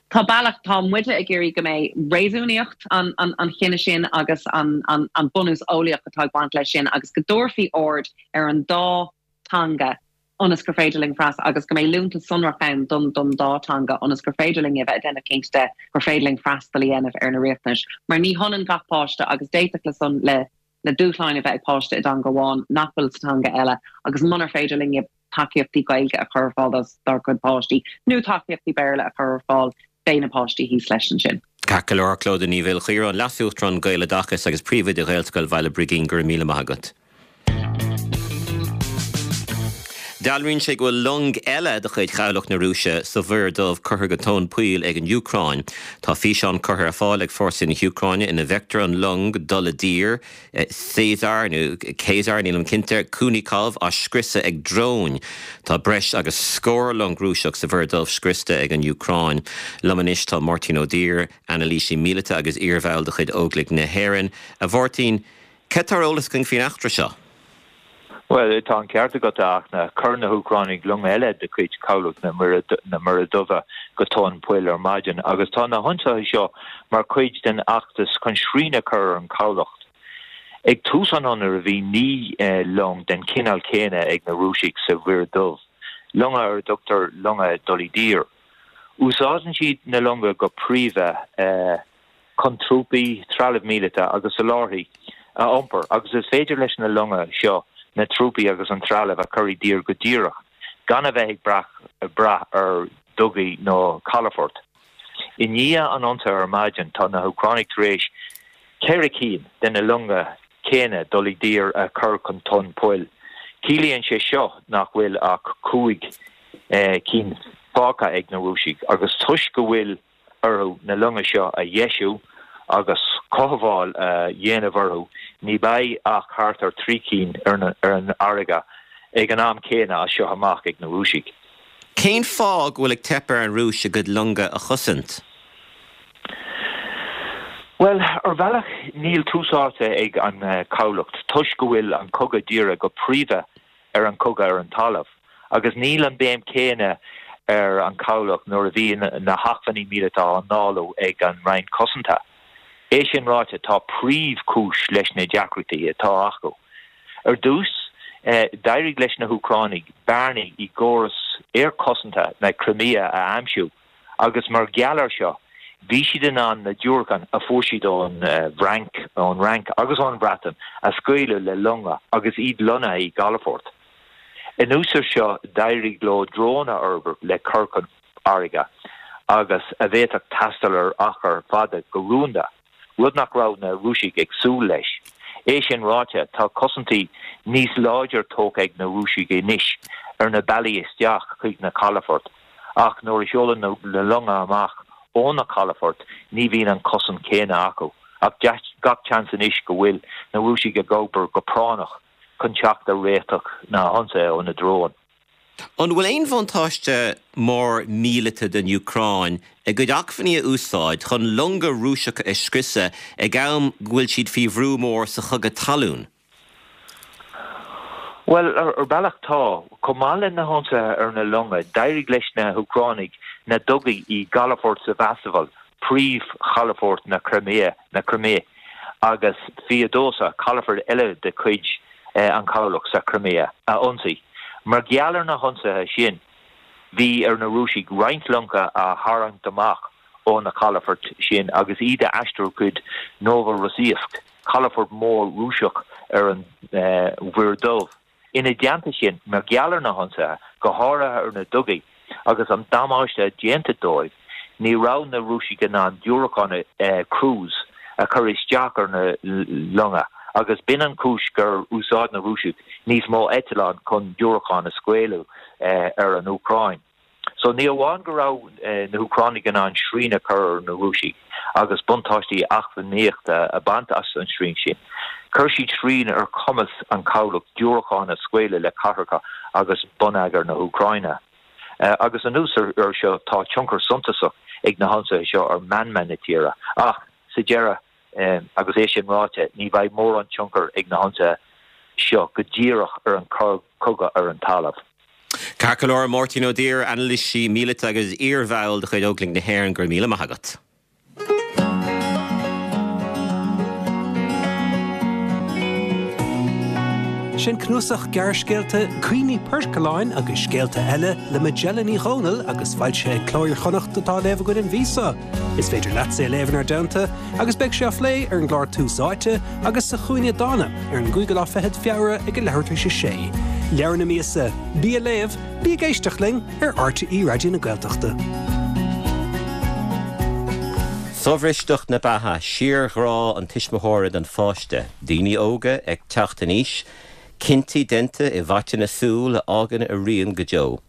Speaker 4: Tá bealach, tá muide ag iarraidh go mbeidh réasúnaíocht an an chinnidh sin agus an an bunús eolaíoch atá ag baint leis sin agus go dtabharfaí aird ar an dá teanga ionas gur féidir linn freastal agus go mbeidh liúntas sonrach ann don don dá teanga ionas gur féidir linn a bheith ag déanamh cinnte de gur féidir linn freastal a dhéanamh ar na riachtanais mar ní hionann gach páiste agus d'fhéadfadh le son le le dúshláin a bheith ag páiste i dteanga amháin nach bhfuil sa teanga eile agus munar féidir linne tacaíochtaí Gaeilge a chur ar fáil dár gcuid páistí nó tacaíochtaí Béarla a chur ar fáil, beidh na páistí thíos leis ansin.
Speaker 1: Ceart go leor, Clodagh Ní Mhaoilchiaráin, Leas-Uachtarán Gaeloideachas agus Príomhoide Ghaelscoil Bhaile Brigín, go raibh míle maith agat. Dealraíonn sé go bhfuil long eile de chuid Chabhlach na Rúise sa Mhuir Dhubh curtha go tóin poill ag an Úcráin. Tá físeán curtha ar fáil ag fórsaí na hÚcráine ina bhfeictear an long dul i dtír, Caesar nó Caesar, nílim cinnte, Kunikov á scriosadh ag dróin. Tá breis agus scór long Rúiseach sa Mhuir Dhubh scriosta ag an Úcráin. Liom anois tá Máirtín Ó Duibhir, anailísí míleata agus iarbhall de chuid Óglaigh na hÉireann. A Mháirtín, Cad tá ar eolas againn faoin eachtra seo?
Speaker 5: Bhuel, tá an ceart agat, a Fhachtna. Chuir na hÚcránaigh long eile de chuid Chabhlach na Muire Duibhe go tóin poill ar maidin agus tá na hionsaithe seo mar chuid den fheachtas chun srian a chur ar an chabhlach. Ag tús an ionraidh bhí 9 long den chineál céanna ag na Rúisigh sa Mhuir Dhubh, longa ar a dtugtar longa dul i dtír. Úsáideann siad na longa go príomha. chun trúpaí, trealamh míleata agus soláthairtí a iompar agus is féidir leis na longa seo na trúpaí agus an trealamh a chur i dtír go díreach gan a bheith ag brath ar dhugaí nó calafoirt. I ndiaidh an ionsaithe ar maidin tá na hÚcránaigh tar éis 4 cinn de na longa céanna dul i dtír a chur chun tóin poill. Ciallaíonn sé seo nach bhfuil ach 5 cinn fágtha ag na Rúisigh agus toisc go bhfuil orthu na longa seo a dheisiú agus cothabháil a dhéanamh orthu, ní bheidh ach thart ar 3 cinn ar an fharraige ag an am céanna as seo amach ag na Rúisigh.
Speaker 1: Cén fáth go bhfuil ag teip ar an Rúis a gcuid longa a chosaint?
Speaker 5: Bhuel, ar bhealach níl tús áite ag an chabhlach toisc go bhfuil an cogadh dírithe go príomha ar an chogadh ar an talamh, agus níl an béim chéanna ar an chabhlach nuair a bhíonn na hacmhainní míleata á ndáileadh ag an Roinn Cosanta. É sin ráite, tá príomhchúis leis na deacrachtaí atá acu. Ar dtús, d'éirigh leis na hÚcránaigh bearnaí i gcóras aerchosanta na Crimea a aimsiú, agus mar gheall air seo bhí siad in ann na diúracáin a fuair siad ón bhFrainc, ón Fhrainc agus ón Bhreatain a scaoileadh le longa agus iad lonnaithe i gcalafoirt. Anuas air seo d'éirigh leo dróin a fhorbairt le cur chun farraige agus a bhféadfadh taisteal ar achar fada go rúnda. rud nach raibh na Rúisigh ag súil leis. É sin ráite, tá cosaintí níos láidre tógtha ag na Rúisigh anois ar na bealaí isteach chuig na calafoirt, ach nuair a sheolann na longa amach ó na calafoirt ní bhíonn an chosaint chéanna acu. Ach gach seans anois go bhfuil na Rúisigh ag obair go práinneach chun teacht ar réiteach na hionsaithe ó na dróin.
Speaker 1: An bhfuil aon bhuntáiste mór míleata don Úcráin a gcuid acmhainní a úsáid chun longa Rúiseacha a scriosadh ag am go bhfuil siad faoi bhrú mór sa chogadh talún?
Speaker 5: Bhuel, ar bhealach tá. Chomh maith le na hionsaithe ar na longa, d'éirigh leis na hÚcránaigh na dugaí i gcalafort Sevastopol, príomhchalafort na Crimea, na Crimé, agus Feodosia, calafort eile de chuid an chabhlach sa Chrimea, a ionsaí. Mar gheall ar na hionsaithe sin, bhí ar na Rúisigh roinnt longa a tharraingt amach ó na calafoirt sin agus iad a aistriú chuig Novorossiysk, calafort mór Rúiseach ar an Mhuir Dhubh. Ina dteannta sin, mar gheall ar na hionsaithe, go háirithe ar na dugaí, agus an damáiste déanta dóibh, ní raibh na Rúisigh in ann diúracáin cruise a chur isteach ar na longa agus b'in an chúis gur úsáid na Rúisigh níos mó eitleán chun diúracáin a scaoileadh ar an Úcráin. So ní amháin go raibh na hÚcránaigh in ann srian a chur ar na Rúisigh agus buntáistí eacnamaíochta a bhaint as an srian sin, chuir siad srian ar chumas an chabhlach diúracáin a scaoileadh le cathracha agus bonneagar na hÚcráine. Agus anuas air seo tá tionchar suntasach ag na hionsaithe seo ar mheanma na tíre. Ach sa deireadh, agus é sin ráite, ní bheidh mórán tionchair ag na hionsaithe seo go díreach ar an chogadh ar an talamh.
Speaker 1: Ceart go leor, Máirtín Ó Duibhir, anailísí míleata agus iarbhall de chuid Óglaigh na hÉireann, go raibh míle maith agat.
Speaker 6: Sin cnuasach gearrscéalta Cuimhní Poircealláin agus Scéalta Eile le Majella Ní Dhomhnaill agus foilsithe ag Cló Iar-Chonnacht atá á léamh againn an mhí seo. Is féidir leatsa é a léamh inár dteannta agus beidh sé á phlé ar an gclár Tús Áite agus sa Chúinne Dána ar an gcúigiú lá fichead Feabhra ag a leathuair tar éis a sé. Leabhar na míosa, bí ag léamh, bí ag éisteacht linn ar RTÉ Raidió na Gaeltachta.
Speaker 1: Sobhristeacht na beatha, síorghrá an tuismitheora don pháiste, daoine óga ag teacht in aois, cinntí déanta i bhfaiteadh na súl a fhágann a rian go deo.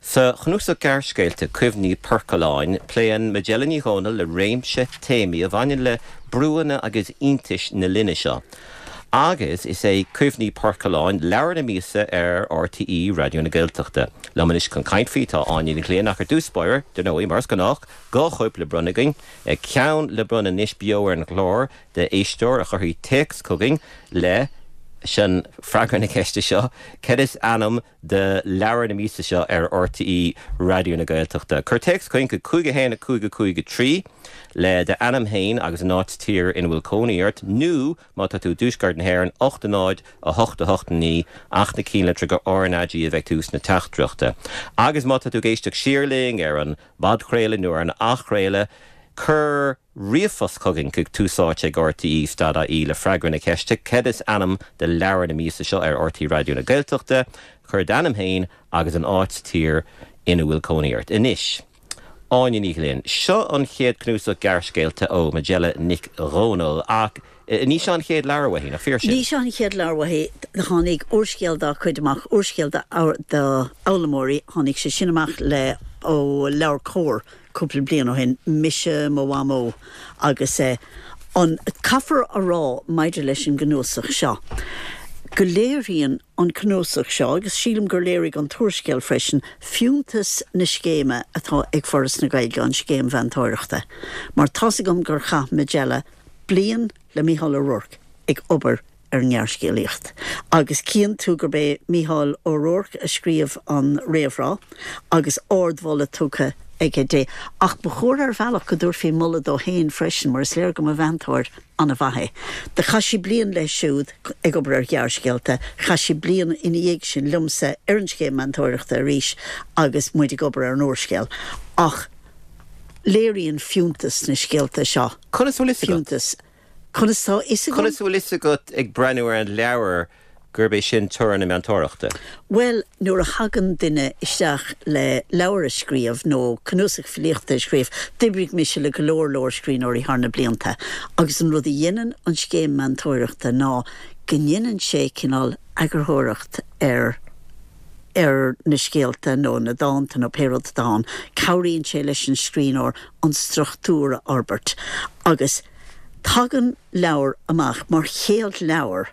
Speaker 1: Sa chnuasach gearrscéalta Cuimhní Poircealláin, pléann Majella Ní Dhomhnaill le réimse téamaí a bhaineann le brúanna agus iontais na linne seo. Agus is é Cuimhní Poircealláin leabhar na míosa ar RTÉ Raidió na Gaeltachta. Liom anois chun caint faoi tá Áine Ní Ghlinn ach ar dtús báire, dar ndóigh, mar is gnách, 2 chóip le bronnadh againn, ceann le bronnadh anois beo ar an gclár d'éisteoir a chuirfidh téacs chugainn leis an freagra na ceiste seo, Cad is ainm do leabhar na míosa seo ar RTÉ Raidió na Gaeltachta. Cuir téacs chugainn chuig 5 1 5 5 3 le d'ainm féin agus an áit tír ina bhfuil cónaí ort nó má tá tú i dtuaisceart na hÉireann 8 0 8 8 9 ach na cinnlitreacha RnaG a bheidh ag tús na teachtaireachta. Agus má tá tú ag éisteacht siar linn ar an bpodchraoladh nó ar an athchraoladh, cuir ríomhphost chugainn chuig Tús Áite ag RTÉ stad ie le freagra na ceiste Cad is ainm do leabhar na míosa seo ar RTÉ Raidió na Gaeltachta? Cuir d'ainm féin agus an áit, tír ina bhfuil cónaí ort. Anois, Áine Ní Ghlinn, seo an chéad cnuasach gearrscéalta ó Majella Nic Dhomhnaill ach ní seo an chéad leabhar uaithi, nach fíor sin?
Speaker 7: Ní seo an chéad leabhar uaithi. Tháinig úrscéal dá cuid amach, úrscéal d'fhoghlaimeoirí, tháinig sé sin amach le ó LeabhairCOMHAR cúpla bliain ó shin, Mise, Mo Mhamó agus an, caithfear a rá maidir leis an gcnuasach seo, go léiríonn an cnuasach seo, agus sílim gur léirigh an t-úrscéal freisin, fiúntas na scéime atá ag Foras na Gaeilge, an scéim mheantóireachta. Mar tá's agam gur chaith Majella bliain le Mícheál Ó Ruairc ag obair ar an ngearrscéalaíocht. Agus cíonn tú gurb é Mícheál Ó Ruairc a scríobh an réamhrá agus ardmholadh tugtha aige di. Ach ba chóir ar bhealach go dtabharfaí moladh dó féin freisin mar is léir go mba mheantóir an-mhaith é. Do chaith sí bliain leis siúd ag obair ar ghearrscéalta, chaith sí bliain ina dhiaidh sin liomsa ar an scéim meantóireachta arís agus muid ag obair ar an úrscéal. Ach léiríonn fiúntas na scéalta seo
Speaker 1: Conas a bhfuil fhios agat?
Speaker 7: fiúntas. Conas tá fhios agam?
Speaker 1: Conas a bhfuil fhios agat ag breathnú ar an leabhar gurb é sin toradh na meantóireachta?
Speaker 7: Bhuel, nuair a thagann duine isteach le leabhar a scríobh nó cnuasach filíochta a scríobh, d'oibrigh mise le go leor leor scríbhneoirí thar na blianta agus an rud a dhéanann an scéim meantóireachta ná go ndéanann sé cineál eagarthóireacht ar ar na scéalta nó na dánta nó pé rud atá ann. Cabhraíonn sé leis an scríbhneoir an struchtúr a fhorbairt agus Tagann leabhar amach mar chéad leabhar,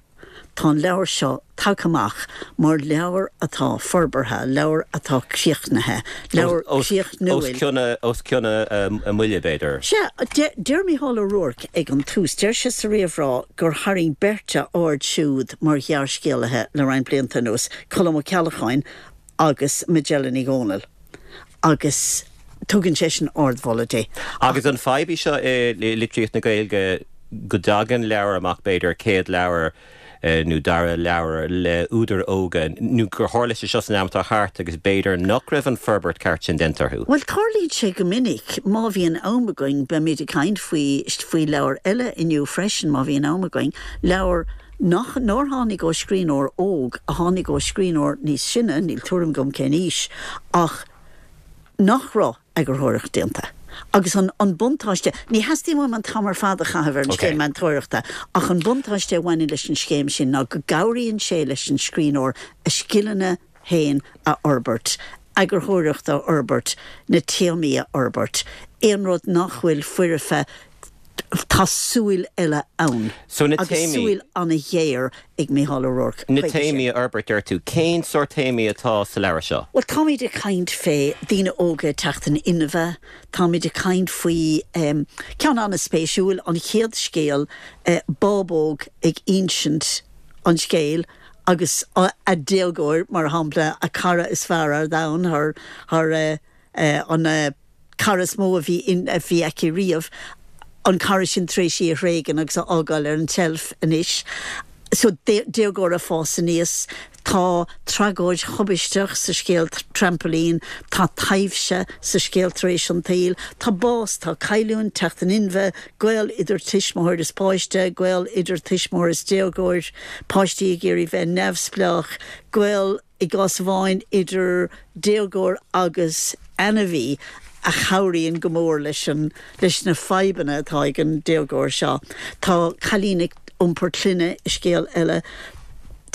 Speaker 7: tá an leabhar seo tagtha amach mar leabhar atá forbartha, leabhar atá críochnaithe, leabhar críochnúil.
Speaker 1: Os cionn a mbuille, b'fhéidir.
Speaker 7: Sea, deir Mícheál Ó Ruairc ag an tús, deir sé sa réamhrá gur tharraing beirt a aird siúd mar ghearrscéalaithe le roinnt blianta anuas, Colm Ó Ceallacháin agus Majella Ní Dhomhnaill. agus tugann seisean ardmholadh di.
Speaker 1: Agus an fadhb í seo i litríocht na Gaeilge go dtagann leabhar amach, b'fhéidir, céad leabhar nó dara leabhar le údair óga, nó gur tharla sé seo san am atá thart agus b'fhéidir nach raibh an forbairt ceart sin déanta orthu?
Speaker 7: Bhuel, tarlaíonn sé go minic. Má bhíonn am againn, beimid ag caint faoi, faoi leabhar eile inniu freisin, má bhíonn am againn, leabhar. nach, nár tháinig ó scríbhneoir óg, a tháinig ó scríbhneoir níos sine, níl tuairim agam cén aois, ach nach raibh eagarthóireacht déanta. Agus an, an buntáiste, ní theastaíonn uaim an t-am ar fad a chaitheamh ar an scéim meantóireachta, ach an buntáiste a bhaineann leis an scéim sin ná go gcabhraíonn sé leis an scríbhneoir a scileanna féin a fhorbairt, eagarthóireacht a fhorbairt, na téamaí a fhorbairt, aon rud nach bhfuil foirfe, tá súil eile ann.
Speaker 1: So na
Speaker 7: Agus
Speaker 1: téamaí.
Speaker 7: súil an-ghéar ag Mícheál Ó Ruairc
Speaker 1: Na
Speaker 7: chuige sin.
Speaker 1: téamaí a fhorbairt, deir tú. Cén sórt téamaí atá sa leabhar seo?
Speaker 7: Bhuel, táimid ag caint fé daoine óga ag teacht in inmhe, táimid ag caint faoi, ceann an-spéisiúil, an chéad scéal, bábóg ag insint an scéil agus a déagóir, mar shampla, a cara is fearr ar domhan, thar, thar an cara is mó a bhí in, a bhí aici riamh, an cara sin tar éis í a thréigean agus a fhágáil ar an tseilf anois. So, déagóir ag fás aníos. Tá tragóid thubaisteach sa scéal Trampailín, tá taibhse sa scéal Tar éis an tSaoil, tá bás, tá cailliúint, teacht in inmhe, gaol idir tuismitheoir is páiste, gaol idir tuismitheoir is déagóir, páistí ag iarraidh bheith neamhspleách, gaol i gcás amháin idir déagóir agus ainmhí a chabhraíonn go mór leis an leis na fadhbanna atá ag an déagóir seo. Tá cailín ag iompar clainne i scéal eile,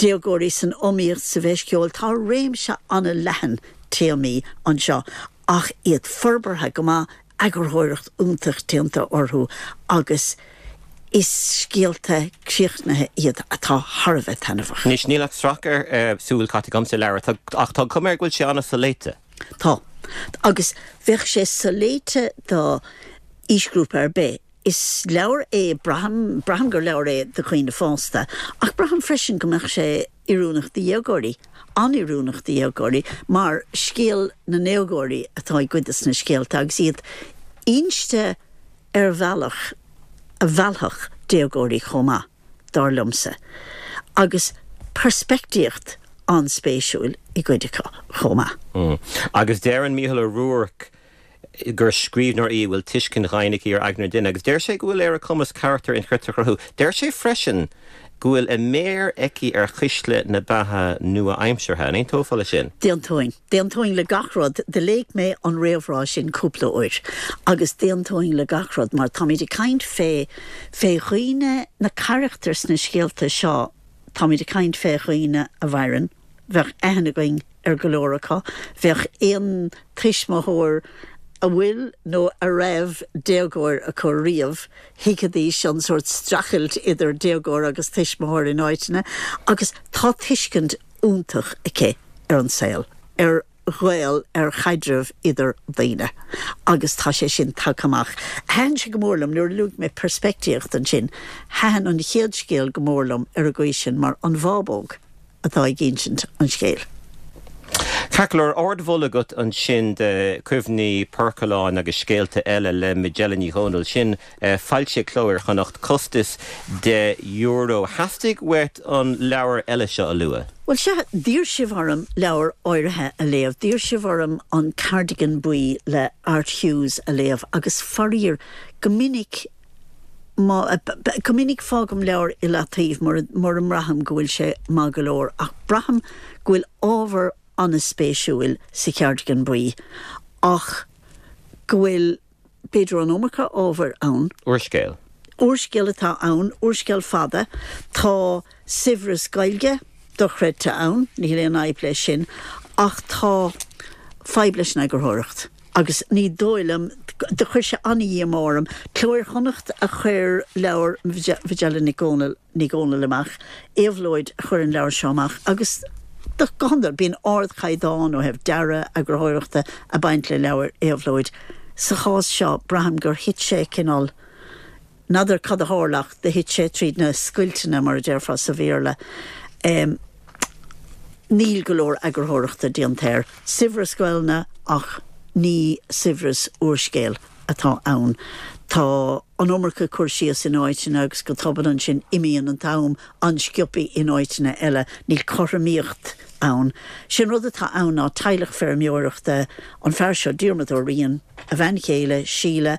Speaker 7: déagóirí san iomaíocht sa bhFeis Cheoil. Tá réimse an-leathan téamaí anseo ach iad forbartha go maith eagarthóireacht iontach déanta orthu agus is scéalta críochnaithe iad atá thar a bheith taitneamhach.
Speaker 1: Anois, níl ach sracadh súl caite agam sa leabhar, ach tá cuma air go bhfuil sé an-soléite.
Speaker 7: Tá. Agus bheadh sé soléite do aoisghrúpa ar bith. Is leabhar é, braithim, braithim gur leabhar é do dhaoine fásta, ach braithim freisin go mbeadh sé oiriúnach do dhéagóirí, an-oiriúnach do dhéagóirí, mar scéal na ndéagóirí atá i gcuid de na scéalta agus iad inste ar bhealach a mheallfadh déagóirí chomh maith, dar liomsa, agus peirspictíocht an-spéisiúil i gcuid acu chomh maith.
Speaker 1: Agus deireann Mícheál Ó Ruairc gur scríbhneoir í a bhfuil tuiscint dhaingean aici ar aigne an duine agus deir sé go bhfuil ar a cumas carachtair inchreidte a chruthú. Deir sé freisin go bhfuil a méar aici ar chuisle na beatha nua-aimseartha. An aontófá leis sin?
Speaker 7: D'aontóinn. D'aontóinn le gach rud. Do léigh mé an réamhrá sin cúpla uair agus d'aontóinn le gach rud mar táimid ag caint fé, fé dhaoine, na carachtair sna scéalta seo, táimid ag caint fé dhaoine a mhaireann, bheadh aithne againn ar go leor acu. Bheadh aon tuismitheoir a bhfuil nó a raibh déagóir acu riamh, thuigfidís an sórt streachailt idir déagóir agus tuismitheoir in áiteanna agus tá tuiscint iontach aici ar an saol, ar ghaol, ar chaidreamh idir daoine agus tá sé sin tagtha amach. Thaitin sé go mór liom, nuair a luaigh mé peirspictíocht ansin, thaitin an chéad scéal go mór liom ar an gcaoi sin mar an bhábóg. atá ag insint an scéil.
Speaker 1: Ceart go leor, ardmholadh agat ansin de Cuimhní Poircealláin agus Scéalta Eile le Majella Ní Dhomhnaill. Sin foilsithe ag Cló Iar-Chonnacht, costas €10. Theastaigh uait an leabhar eile seo a lua.
Speaker 7: Bhuel, sea, d'iarr sibh orm leabhar áirithe a léamh. D'iarr sibh orm An Cardigan Buí le Art Hughes a léamh agus faraor, go minic, Má, go minic fágaim leabhar i leataobh mura, mura mbraithim go bhfuil sé maith go leor ach braithim go bhfuil ábhar an-spéisiúil sa Cheardigan Buí ach go bhfuil, b'fhéidir an iomarca ábhair ann.
Speaker 1: Úrscéal.
Speaker 7: Úrscéal atá ann, úrscéal fada. Tá saibhreas Gaeilge dochreidte ann, níl aon fhadhb leis sin, ach tá fadhb leis an eagarthóireacht. Agus ní dóigh liom, do chuir sé an-dhíomá orm. Cló Iar-Chonnacht a chuir leabhar Mhajella Nic Dhomhnaill, Ní Dhomhnaill amach, Éabhlóid a chuir an leabhar seo amach agus go hiondúil bíonn ardchaighdeán ó thaobh dearadh, eagarthóireachta ag baint le leabhair Éabhlóid. Sa chás seo, braithim gur thit sé cineál, N'fheadar cad a tharla ach do thit sé tríd na scoilteanna, mar a déarfá sa Bhéarla. Níl go leor eagarthóireachta déanta air. Saibhreas Gaelainne ach ní saibhreas úrscéil atá ann. Tá an iomarca cur síos in áiteanna agus go tobann ansin imíonn an t-am an-sciobtha in áiteanna eile. Níl cothromaíocht ann. Sé an rud atá ann ná teaghlach feirmeoireachta, an fear seo, Diarmuid Ó Riain, a bhean chéile, Síle,.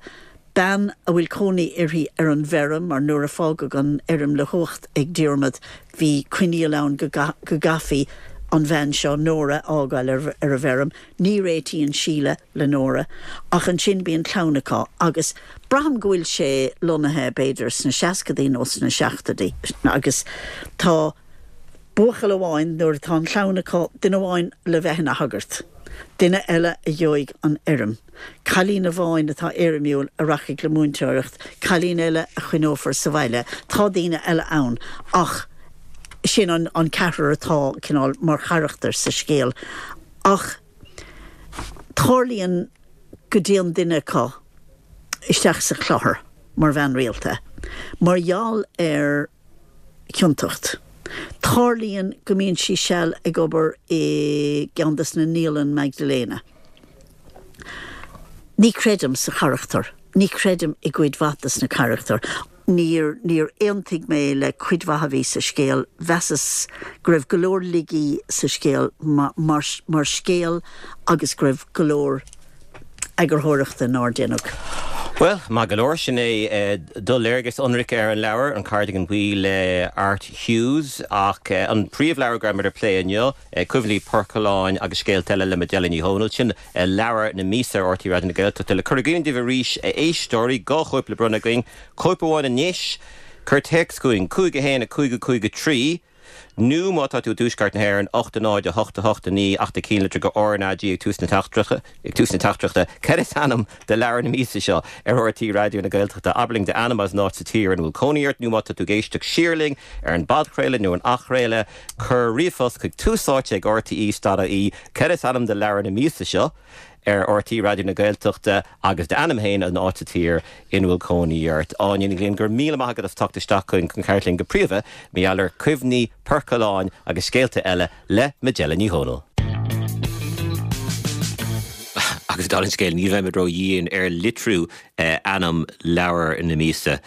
Speaker 7: Bean a bhfuil cónaí uirthi ar an bhfeirm, mar nuair a fágadh an fheirm le huacht ag Diarmaid bhí coinníoll ann go gcaithfí an bhean seo, Nóra, a fhágáil ar an bhfeirm. Ní réitíonn Síle le Nóra ach ansin bíonn clann acu agus braithim go bhfuil sé lonnaithe b'fhéidir sna seascadaí nó sna seachtóidí agus tá buachaill amháin, nuair atá an chlann acu, duine amháin le bheith ina shagart, duine eile a gheobhaidh an fheirm, cailín amháin atá éirimiúil a rachaidh le múinteoireacht, cailín eile a choinneofar sa bhaile. Tá daoine eile ann ach sin an ceathrar atá cineál mar charachtair sa scéal. Ach tarlaíonn go dtéann duine acu isteach sa chlochar mar bhean rialta mar gheall ar chiontacht. Tarlaíonn go mbíonn sí seal ag obair i gceann des na naíolann Magdalena. Ní chreidim sa charachtar. Ní chreidim i gcuid mhaith des na carachtair. Níor, níor aontaigh mé le cuid mhaith a bhí sa scéal. Mheasas go raibh go leor laigí sa scéal mar, mar scéal agus go raibh go leor eagarthóireachta nár deineadh.
Speaker 1: Bhuel, maith go leor, sin é do léargas ionraic ar an leabhar, An Cardigan Buí le Art Hughes. Ach an príomhleabhar go raibh muid ag plé inniu, Cuimhní Poircealláin agus Scéalta Eile le Majella Ní Dhomhnaill, sin leabhar na míosa ar RTÉ Raidió na Gaeltachta. Le cur i gcuimhne daoibh arís, a éisteoirí, 2 chóip le bronnadh againn, cóip amháin anois, cuir téacs chugainn, 5 1 5 5 3, Nó má tá tú i dTuaisceart na hÉireann, 8 0 8 8 9 ach do chinnlitir go RnaG ag tús na teachtaireachta. Cad is ainm do leabhar na míosa seo ar RTÉ Raidió na Gaeltachta? Abair linn d'ainm agus an áit sa tír ina bhfuil cónaí ort, nó má tá tú ag éisteacht siar linn ar an bpodchraoladh nó an athchraoladh, cuir ríomhphost chuig túsáite ag rte.ie. Cad is ainm do leabhar na míosa seo ar RTÉ Raidió na Gaeltachta agus d'ainm féin an áit sa tír ina bhfuil cónaí ort. Áine Ní Ghlinn, go raibh míle maith agat as teacht isteach chugainn chun caint linn go príomha mar gheall ar Cuimhní Poircealláin agus Scéalta Eile le Majella Ní Dhomhnaill. Agus dála an scéil, ní bheimid ró-dhian ar litriú ainm leabhar na míosa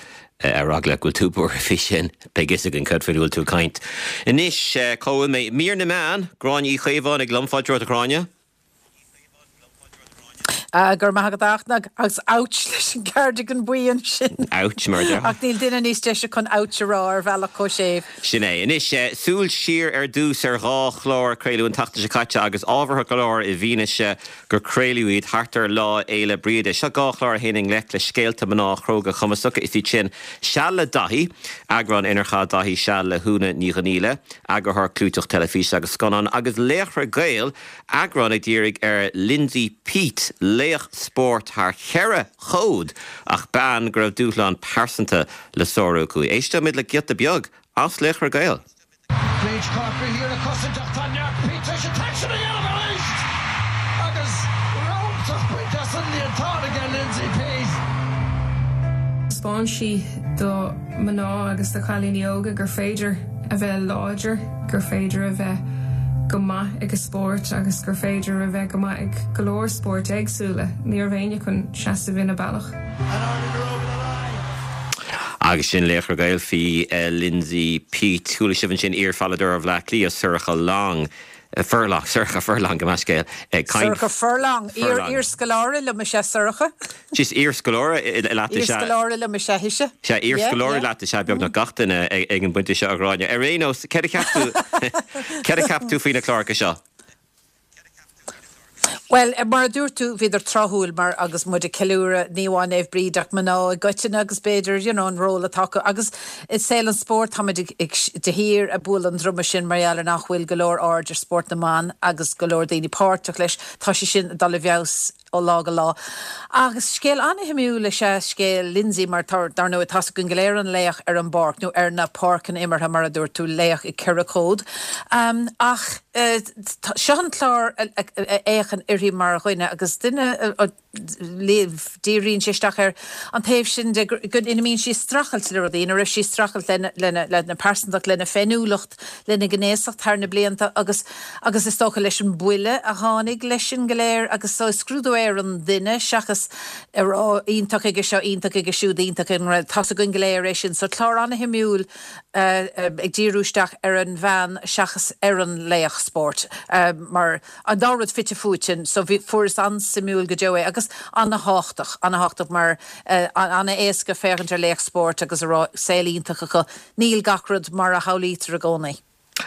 Speaker 1: ar eagla go bhfuil tú buartha faoi sin. Beidh fhios againn cad faoina bhfuil tú ag caint. Anois, cá bhfuil mé? Mír na meán, Gráinne Uí Chaomháin ag liom. Fáilte romhat a Ghráinne.
Speaker 8: Go raibh maith agat a Fhachtna, agus ouch leis an gcardigan buí ansin.
Speaker 1: Ouch, mar a déarfá.
Speaker 8: Ach níl duine níos deise chun ouch a rá ar bhealach chomh séimh.
Speaker 1: Sin é. Anois, súil siar ar dtús ar dhá chlár a craoladh an tseachtain seo caite agus ábhartha go leor i bhfianaise gur craoladh iad thart ar Lá Fhéile Bríde. Seo dhá chlár a théann i ngleic le scéalta mná chróga cumasacha. Is iad sin Seal le Daithí, eagrán inar chaith Daithí seal le hÚna Ní Dhonghaíle, eagarthóir clúiteach teilifíse agus scannán, agus Laochra Gael, Eagrán a dhírigh ar Lindsay Peat, laoch spóirt thar cheithre chód ach bean go raibh dúshlán pearsanta le sárú aici. Éisteoimid le giota beag as Laochra Gael.
Speaker 9: Briege Corkery thiar ag cosaint ach tá neart Peat tar éis an t-aicsean a dhéanamh arís agus rabhadh bainte as an líontán aige Lindsay Peat.
Speaker 10: Thaispeáin sí do mhná agus do chailíní óga gur féidir a bheith láidir, gur féidir a bheith go maith ag a spórt agus gur féidir a bheith go maith ag go leor spóirt éagsúla. Ní raibh éinne chun seasamh ina bealach.
Speaker 1: Agus sin Laochra Gael faoi Lindsay Peat. Chuala sibh ansin iar-pheileadóir Bhaile Átha Cliath, Sorcha Long, Furlong, Sorcha Furlong, gabh mo leithscéal, ag caint.
Speaker 8: Sorcha Furlong, iar-scoláire liom is ea Sorcha.
Speaker 1: Is iar-scoláire leat is ea.
Speaker 8: Iar-scoláire liom is ea ise.
Speaker 1: Sea, iar-scoláire leat is ea beagnach gach duine ag an bpointe seo, a Ghráinne. Ar aon nós, céard a cheap tú, céard a cheap tú faoi na cláracha seo?
Speaker 8: Bhuel, mar a dúirt tú, bhíodar tráthúil mar agus muid ag ceiliúradh ní amháin Naomh Bríd ach mná i gcoitinne agus b'fhéidir, you know, an ról atá acu. Agus i saol an spóirt táimid ag, ag, de shíor ag bualadh an druma sin mar gheall ar nach bhfuil go leor aird ar spórt na mban agus go leor daoine páirteach leis. Tá sé sin ag dul i bhfeabhas ó lá go lá. Agus scéal an-shuimiúil is ea scéal Lindsay mar tá, dar ndóigh, tá's againn go léir an laoch ar an bpáirc, nó ar na páirceanna imeartha mar a dúirt tú, laoch i gceithre chód. Ach seo an clár a fhéachann uirthi mar dhuine agus duine a díríonn sé isteach ar an taobh sin de ina mbíonn sí ag streachailt le rudaí, ina raibh sí ag streachailt lena pearsantacht, lena féiniúlacht, lena gnéasacht thar na blianta agus agus is dócha leis an buille a tháinig leis sin go léir agus so is scrúdú é. ar an duine seachas a rá iontach aige seo, iontach aige siúd, iontach ag an rud. Tá's againn go léir é sin. So clár ana-shuimiúil ag díriú isteach ar an bhean seachas ar an laoch spóirt mar an dá rud fite fuaite so bhí, fuaireas an-suimiúil go deo é agus ana-thábhachtach, ana-thábhachtach mar ana-éasca féachaint ar laoch spóirt agus a rá saol iontach acu. Níl gach rud mar a shamhlaítear i gcónaí.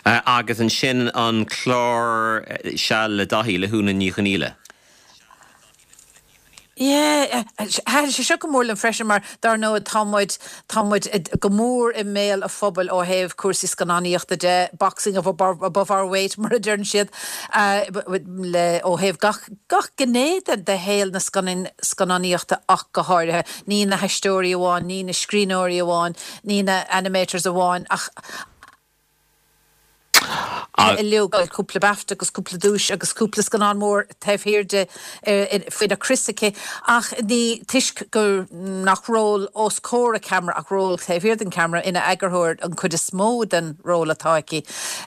Speaker 1: Agus ansin an clár Seal le Daithí le hÚna Ní Chonghaile.
Speaker 8: Yeah, thaitin sé seo go mór liom freisin mar dar ndóigh tá muid, tá muid go mór i mbéal an phobail ó thaobh cúrsaí scannánaíochta de, boxing above our weight mar a deireann siad, le, ó thaobh gach, gach gné de, de shaol na scannánaíochta ach go háirithe. Ní na haisteoirí amháin, ní na scríbhneoirí amháin, ní na animators amháin ach, uilig, cúpla BAFTA agus cúpla duais agus cúpla scannán mór taobh thiar di faoina crios aici ach ní toisc gur nach ról os comhair an cheamara ach ról taobh thiar den cheamara ina eagarthóir an chuid is mó den ról atá aici.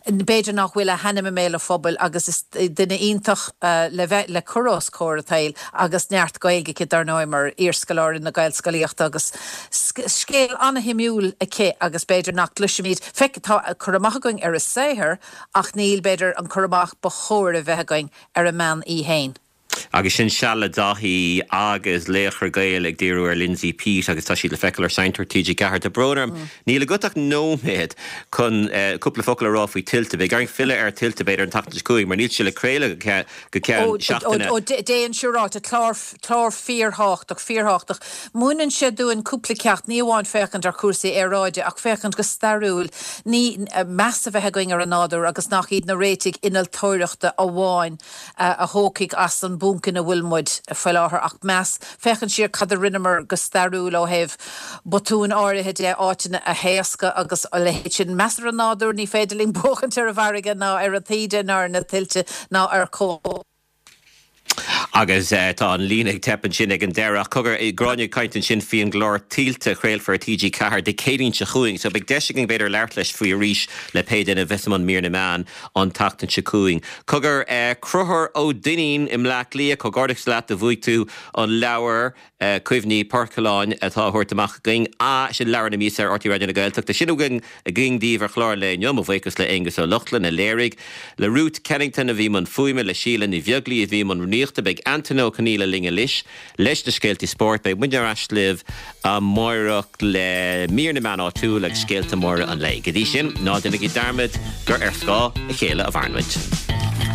Speaker 8: B'fhéidir nach bhfuil a hainm i mbéal an phobail agus is duine iontach le bheith le cur os comhair an tsaoil agus neart Gaeilge aici dar ndóigh mar iarscoláire na Gaelscolaíochta agus Scéal an-shuimiúil aici agus b'fhéidir nach gcloisimid, feic, tá cur amach againn ar a saothar ach níl, b'fhéidir, an cur amach ba chóir a bheith againn ar an mbean í fhéin.
Speaker 1: Agus sin Seal le Daithí agus Laochra Gael ag díriú ar Lindsay Peat agus tá siad le feiceáil ar Seinnteoir TG4. Tá brón orm, níl agat ach nóiméad chun cúpla focal a rá faoi Tuilte. Beidh orainn filleadh ar Tuilte b'fhéidir an tseachtain seo chugainn mar níl sé le craoladh go ceann seachtaine.
Speaker 8: Ó, déan siúráilte, clár Clár fíorthábhachtach, fíorthábhachtach. Múineann sé dúinn cúpla ceacht, ní amháin féachaint ar chúrsaí aeráide ach féachaint go stairiúil, ní, meas a bheith againn ar an nádúr agus nach iad na réitigh innealtóireachta amháin a thógfaidh as an bponc ina bhfuil muid faoi láthair ach meas, féachaint siar cad a rinneamar go stairiúil ó thaobh botúin áirithe de, áiteanna a thaoscadh agus a leithéid sin. Meas ar an nádúr, ní féidir linn buachaint ar an bhfarraige ná ar an taoide ná ar na tuilte ná ar.
Speaker 1: Agus tá an líne ag teip ansin ag an deireadh. Ach cogar, Gráinne ag caint ansin faoi an gclár Tuilte a chraolfar ar TG4 Dé Céadaoin seo chugainn. So beidh deis againn b'fhéidir labhairt leis faoi arís le pé duine a bheas i mbun mír na meán an tseachtain seo chugainn. Cogar, Conchúr Ó Duinnín i mBleá Cliath, comhghairdeachas leat do bhuaigh tú an leabhar. Cuimhní Poircealláin atá á thabhairt amach againn. Sin leabhar na míosa ar RTÉ Raidió na Gaeltachta. Sin againn againn daoibh ar chlár an lae inniu. Mo bhuíochas le Aonghus Ó Lochlainn a léirigh, le Ruth Kennington a bhí i mbun fuaime, le Síle Ní Bheaglaoí a bhí i mbun rúnaíochta. Beidh Antaine Ó Conghaile linn anois leis na scéaltaí spóirt. Beidh muidne ar ais libh amáireach le mír na meán áitiúil agus scéalta móra an lae. Go dtí sin, ná déanaigí dearmad gur ar scáth a chéile a mhaireann muid.